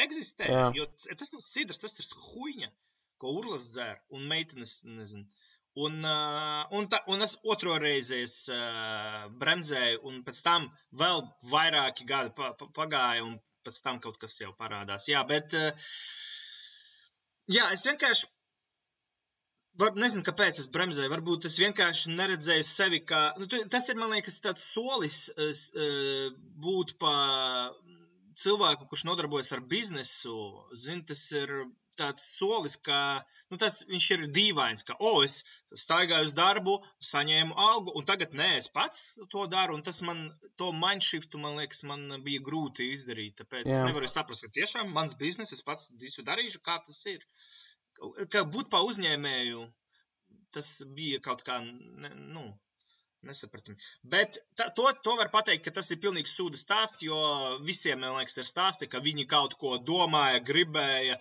eksistē. Jo tas nav sidrs, tas ir huiņa, ko urlas dzer, un meitenes, nezinu. Un es otro reizi bremzēju, un pēc tam vēl vairāki gadi pagāja, un pēc tam kaut kas jau parādās. Jā, bet es vienkārši nezinu, kāpēc es bremzēju. Varbūt es vienkārši neredzēju sevi, kā... tas ir, man liekas, tāds solis būt pa cilvēku, kurš nodarbojas ar biznesu. Tas ir tāds solis, ka viņš ir dīvains, ka es staigāju uz darbu, saņēmu algu, un tagad es pats to daru, un tas to mindshiftu, man liekas, man bija grūti izdarīt, tāpēc es nevaru saprast, ka tiešām mans biznes, es pats visu darīšu, kā tas ir. Ka būt pa uzņēmēju, tas bija kaut kā, nesapratami. Bet to var pateikt, ka tas ir pilnīgs sūda stāsts, jo visiem, man liekas, ir stāsti, ka viņi kaut ko domāja, gribēja.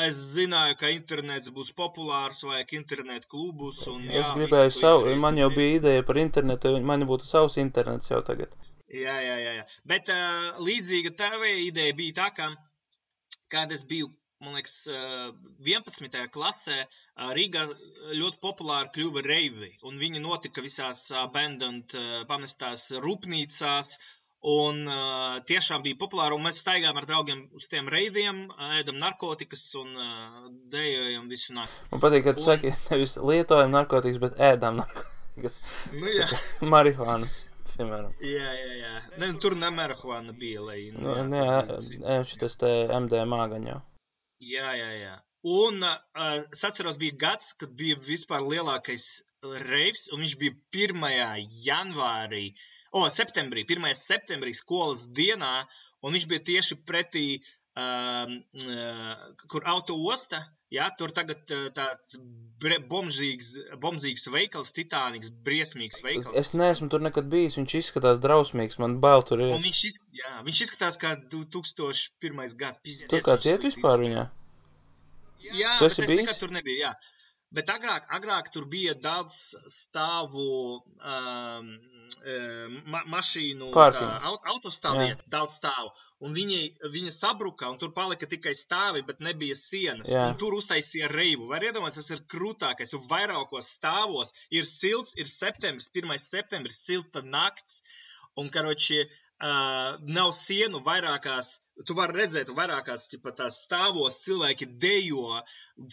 Es zināju, ka internets būs populārs, vajag internetu klubus. Es gribēju man jau bija ideja par internetu, man būtu savs internets jau tagad. Jā. Bet līdzīga tava ideja bija tā, ka kad es biju, man liekas, 11. klasē, Rīgā ļoti populāri kļuva reivi, un viņi notika visās abandoned, pamestās rūpnīcās, un tiešām bija populāri, un mēs staigājām ar draugiem uz tiem reiviem, ēdam narkotikas un dejojam visu nakti. Man patīk, ka tu saki, nevis lietojam narkotikas, bet ēdam narkotikas. Nu, jā. Marihuānu, piemēram. Jā. Ne, tur ne marihuāna bija, lai... šitas te MDMA gan jau. Jā. Un es atceros, bija gads, kad bija vispār lielākais reivs, un viņš bija 1. janvārī, septembrī, 1. septembrī skolas dienā, un viņš bija tieši pretī, kur auto osta, jā, tur tagad tāds bomzīgs veikals, titāniks, briesmīgs veikals. Es neesmu tur nekad bijis, viņš izskatās drausmīgs, man bail tur ir. Un viņš izskatās kā 2001. gads. Tur kāds iet vispār viņā? Jā, bet es nekad tur nebiju, jā. Bet agrāk tur bija daudz stāvu mašīnu autostāvvieta, daudz stāvu. Un viņa sabruka, un tur palika tikai stāvi, bet nebija sienas. Jā. Un tur uztaisīja reivu. Var iedomāties, tas ir krūtākais. Tur vairākos stāvos ir silts, ir septembris, 1. septembris, silta nakts. Un, karoči, nav sienu vairākās, tu vari redzēt vairākās tās stāvos, cilvēki dejo,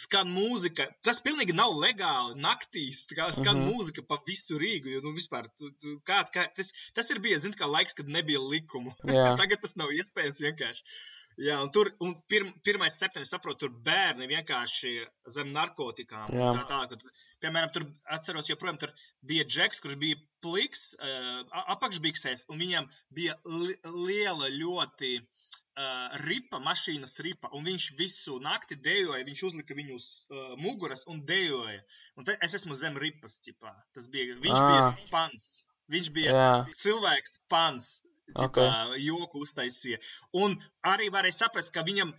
skan mūzika. Tas pilnīgi nav legāli naktīs, skan mūzika pa visu Rīgu, jo, vispār, tas ir bijis, kā laiks, kad nebija likumu. Tagad tas nav iespējams vienkārši. Jā, un tur, 1. septembris, saprotu, tur bērni vienkārši zem narkotikām. Piemēram, tur atceros, joprojām tur bija džeks, kurš bija pliks, apakšbiksēs, un viņam bija liela ļoti ripa, mašīnas ripa, un viņš visu nakti dejoja, viņš uzlika viņu uz muguras un dejoja. Un es esmu zem ripas, ķipā. Viņš bija pans. Viņš bija cilvēks pans. Joku uztaisīja. Un arī varēja saprast, ka viņam,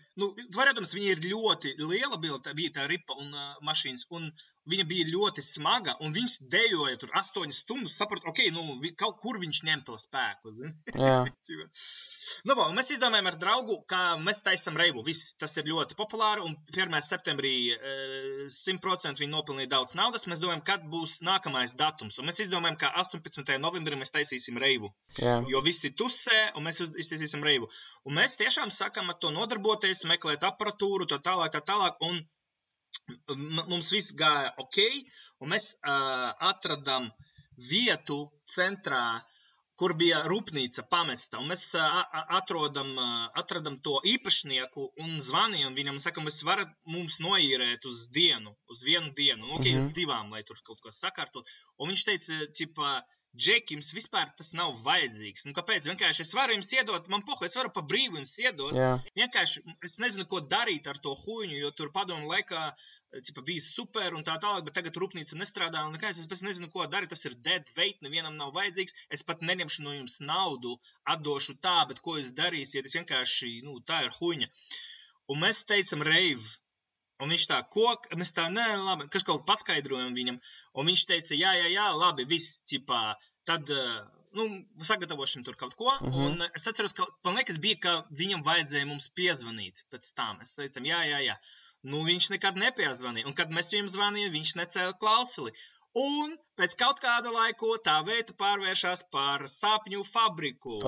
varēdams, viņa ir ļoti liela bija tā ripa un mašīnas, un viņa bija ļoti smaga, un viņš dejoja tur 8 stundas, saprat, kaut kur viņš ņem to spēku, zini? Jā. Un mēs izdomājam ar draugu, ka mēs taisam reivu, viss, tas ir ļoti populāri, un 1. septembrī 100% viņi nopelnīja daudz naudas, mēs domājam, kad būs nākamais datums, un mēs izdomājam, ka 18. novembrī mēs taisīsim reivu, jo visi tusē, un mēs iztaisīsim reivu. Un mēs tiešām sākam ar to nodarboties, meklēt aparatūru, tā tālāk, un mums viss gāja ok, un mēs atradam vietu centrā, kur bija rūpnīca pamesta, un mēs atradam to īpašnieku un zvanījām viņam un sakam, jūs varat mums noīrēt uz vienu dienu, uz 2, lai tur kaut ko sakārtot. Un viņš teica, Džeki, jums vispār tas nav vajadzīgs. Kāpēc? Vienkārši es varu jums iedot, man es varu pa brīvu jums iedot. Vienkārši es nezinu, ko darīt ar to huņu, jo tur padomu laikā bija super un tā tālāk, bet tagad rūpnīca nestrādā un nekā, es nezinu, ko darīt, tas ir dead weight, nevienam nav vajadzīgs, es pat neņemšu no jums naudu, atdošu tā, bet ko jūs darīsiet, es vienkārši, tā ir huņa. Un mēs teicam reiv, un viņš tā, mēs tā, nē, labi, kas kaut paskaidrojam viņam, un viņš teica, jā, labi, viss, tad, sagatavošam tur kaut ko, un es atceros, ka, man liekas, bija, ka viņam vajadzēja mums piezvanīt pēc tam, mēs teicam, jā. Viņš nekad nepiezvanīja, un kad mēs viņam zvanījām, viņš necēla klausuli. Un pēc kaut kāda laiku tā vieta pārvēršās par sapņu fabriku.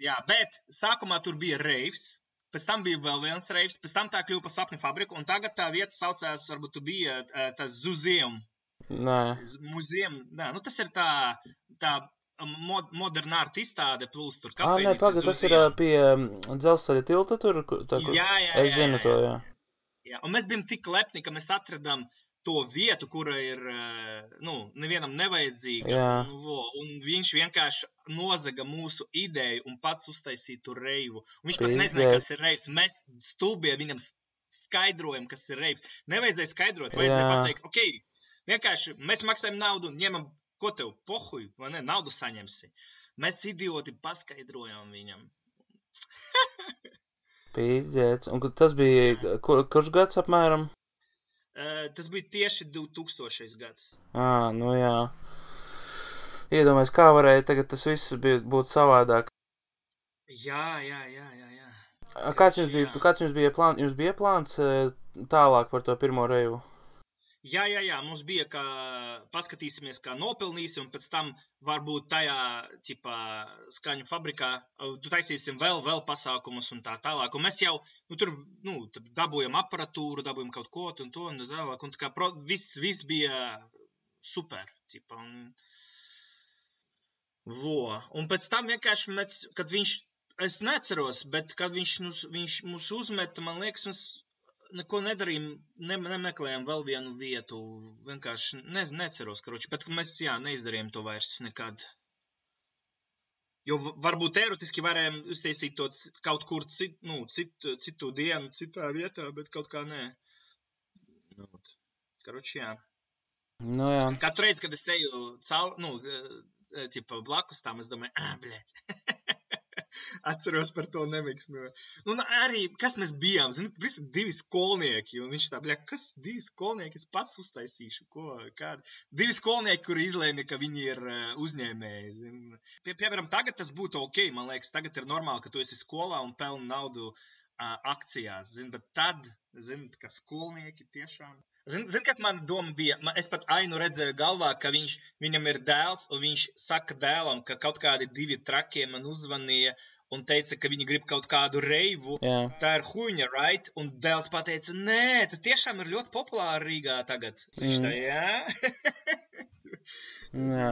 Jā, bet sākumā tur bija reivs, pēc tam bija vēl viens reivs, pēc tam tā kļuva par sapņu fabriku, un tagad tā vieta saucās, varbūt tu bija tas Zuzium. Muzium, tas ir tā modernā ārta izstāde, plus tur kafejnīca. Tas ir pie dzelzceļa tilta tur? Jā. Es zinu to, jā. Un mēs bijām tik lepni, ka mēs atradām to vietu, kura ir, nevienam nevajadzīga. Un viņš vienkārši nozaga mūsu ideju un pats uztaisīja tur reivu. Un viņš pat nezināja, kas ir reivs. Mēs stulbie viņam skaidrojam, kas ir reivs. Nevajadzēja skaidrot, vajadzēja pateikt, vienkārši mēs maksājam naudu un ņemam. Ko tev pohuj, vai ne, naudu saņemsi? Mēs idioti paskaidrojām viņam. Pīzdziets. Un tas bija, kurš gads apmēram? Tas bija tieši 2000. gads. Jā. Iedomājies, kā varēja tagad tas viss būt savādāk. Jā. Kāds jums bija plāns? Jums bija plāns tālāk par to pirmo reivu? Jā, mums bija, ka paskatīsimies, kā nopelnīsim, un pēc tam varbūt tajā, skaņu fabrikā taisīsim vēl pasākumus un tā tālāk. Un mēs jau, tur dabūjam aparatūru, dabūjam kaut ko un to un tālāk, un tā kā viss bija super, Un pēc tam vienkārši, kad es neceros, bet kad viņš mūs uzmeta, man liekas, mēs neko nedarījām, nemeklējām vēl vienu vietu, vienkārši neceros, bet mēs, neizdarījām to vairs nekad. Jo varbūt teoretiski varējām uztaisīt to kaut kur citu dienu, citā vietā, bet kaut kā nē. Jā. Nu, jā. Katru reizi, kad es eju blakus tām, es domāju, bļēc. Atceros par to nemiksmi. Un arī, kas mēs bijām, visi 2 skolnieki, un viņš tā, kas 2 skolnieki, es pats uztaisīšu, kādi. 2 skolnieki, kuri izlēma, ka viņi ir uzņēmēji, Piemēram, tagad tas būtu ok, man liekas, tagad ir normāli, ka tu esi skolā un pelni naudu akcijās, bet tad, ka skolnieki tiešām... Zini, kad man doma bija, es pat Ainu redzēju galvā, ka viņam ir dēls, un viņš saka dēlam, ka kaut kādi 2 trakie man uzvanīja un teica, ka viņi grib kaut kādu reivu. Jā. Tā ir huņa, right? Un dēls pateica, nē, tas tiešām ir ļoti populāri Rīgā tagad. Viņš tā, Jā.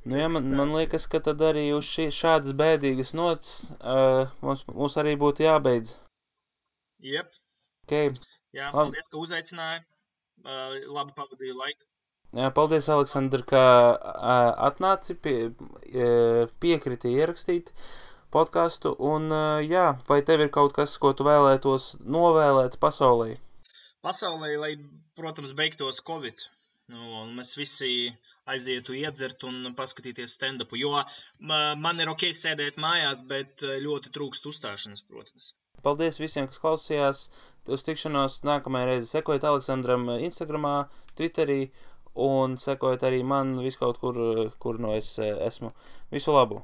Nu jā, man liekas, ka tad arī uz šādas bēdīgas nots mums arī būtu jābeidz. Jep. Okay. Jā, paldies, ka uzaicināji. Labi pavadīju laiku. Jā, paldies, Aleksandr, ka atnāci, piekriti ierakstīt podcastu. Un jā, vai tev ir kaut kas, ko tu vēlētos novēlēt pasaulē? Pasaulē, lai, protams, beigtos Covid. Un mēs visi aizietu iedzert un paskatīties stand-upu. Jo man ir ok sēdēt mājās, bet ļoti trūkst uzstāšanas, protams. Paldies visiem, kas klausījās. Uz tikšanos nākamajā reize. Sekojiet Aleksandram Instagramā, Twitterī un sekojiet arī man viskaut kur no es esmu. Visu labu!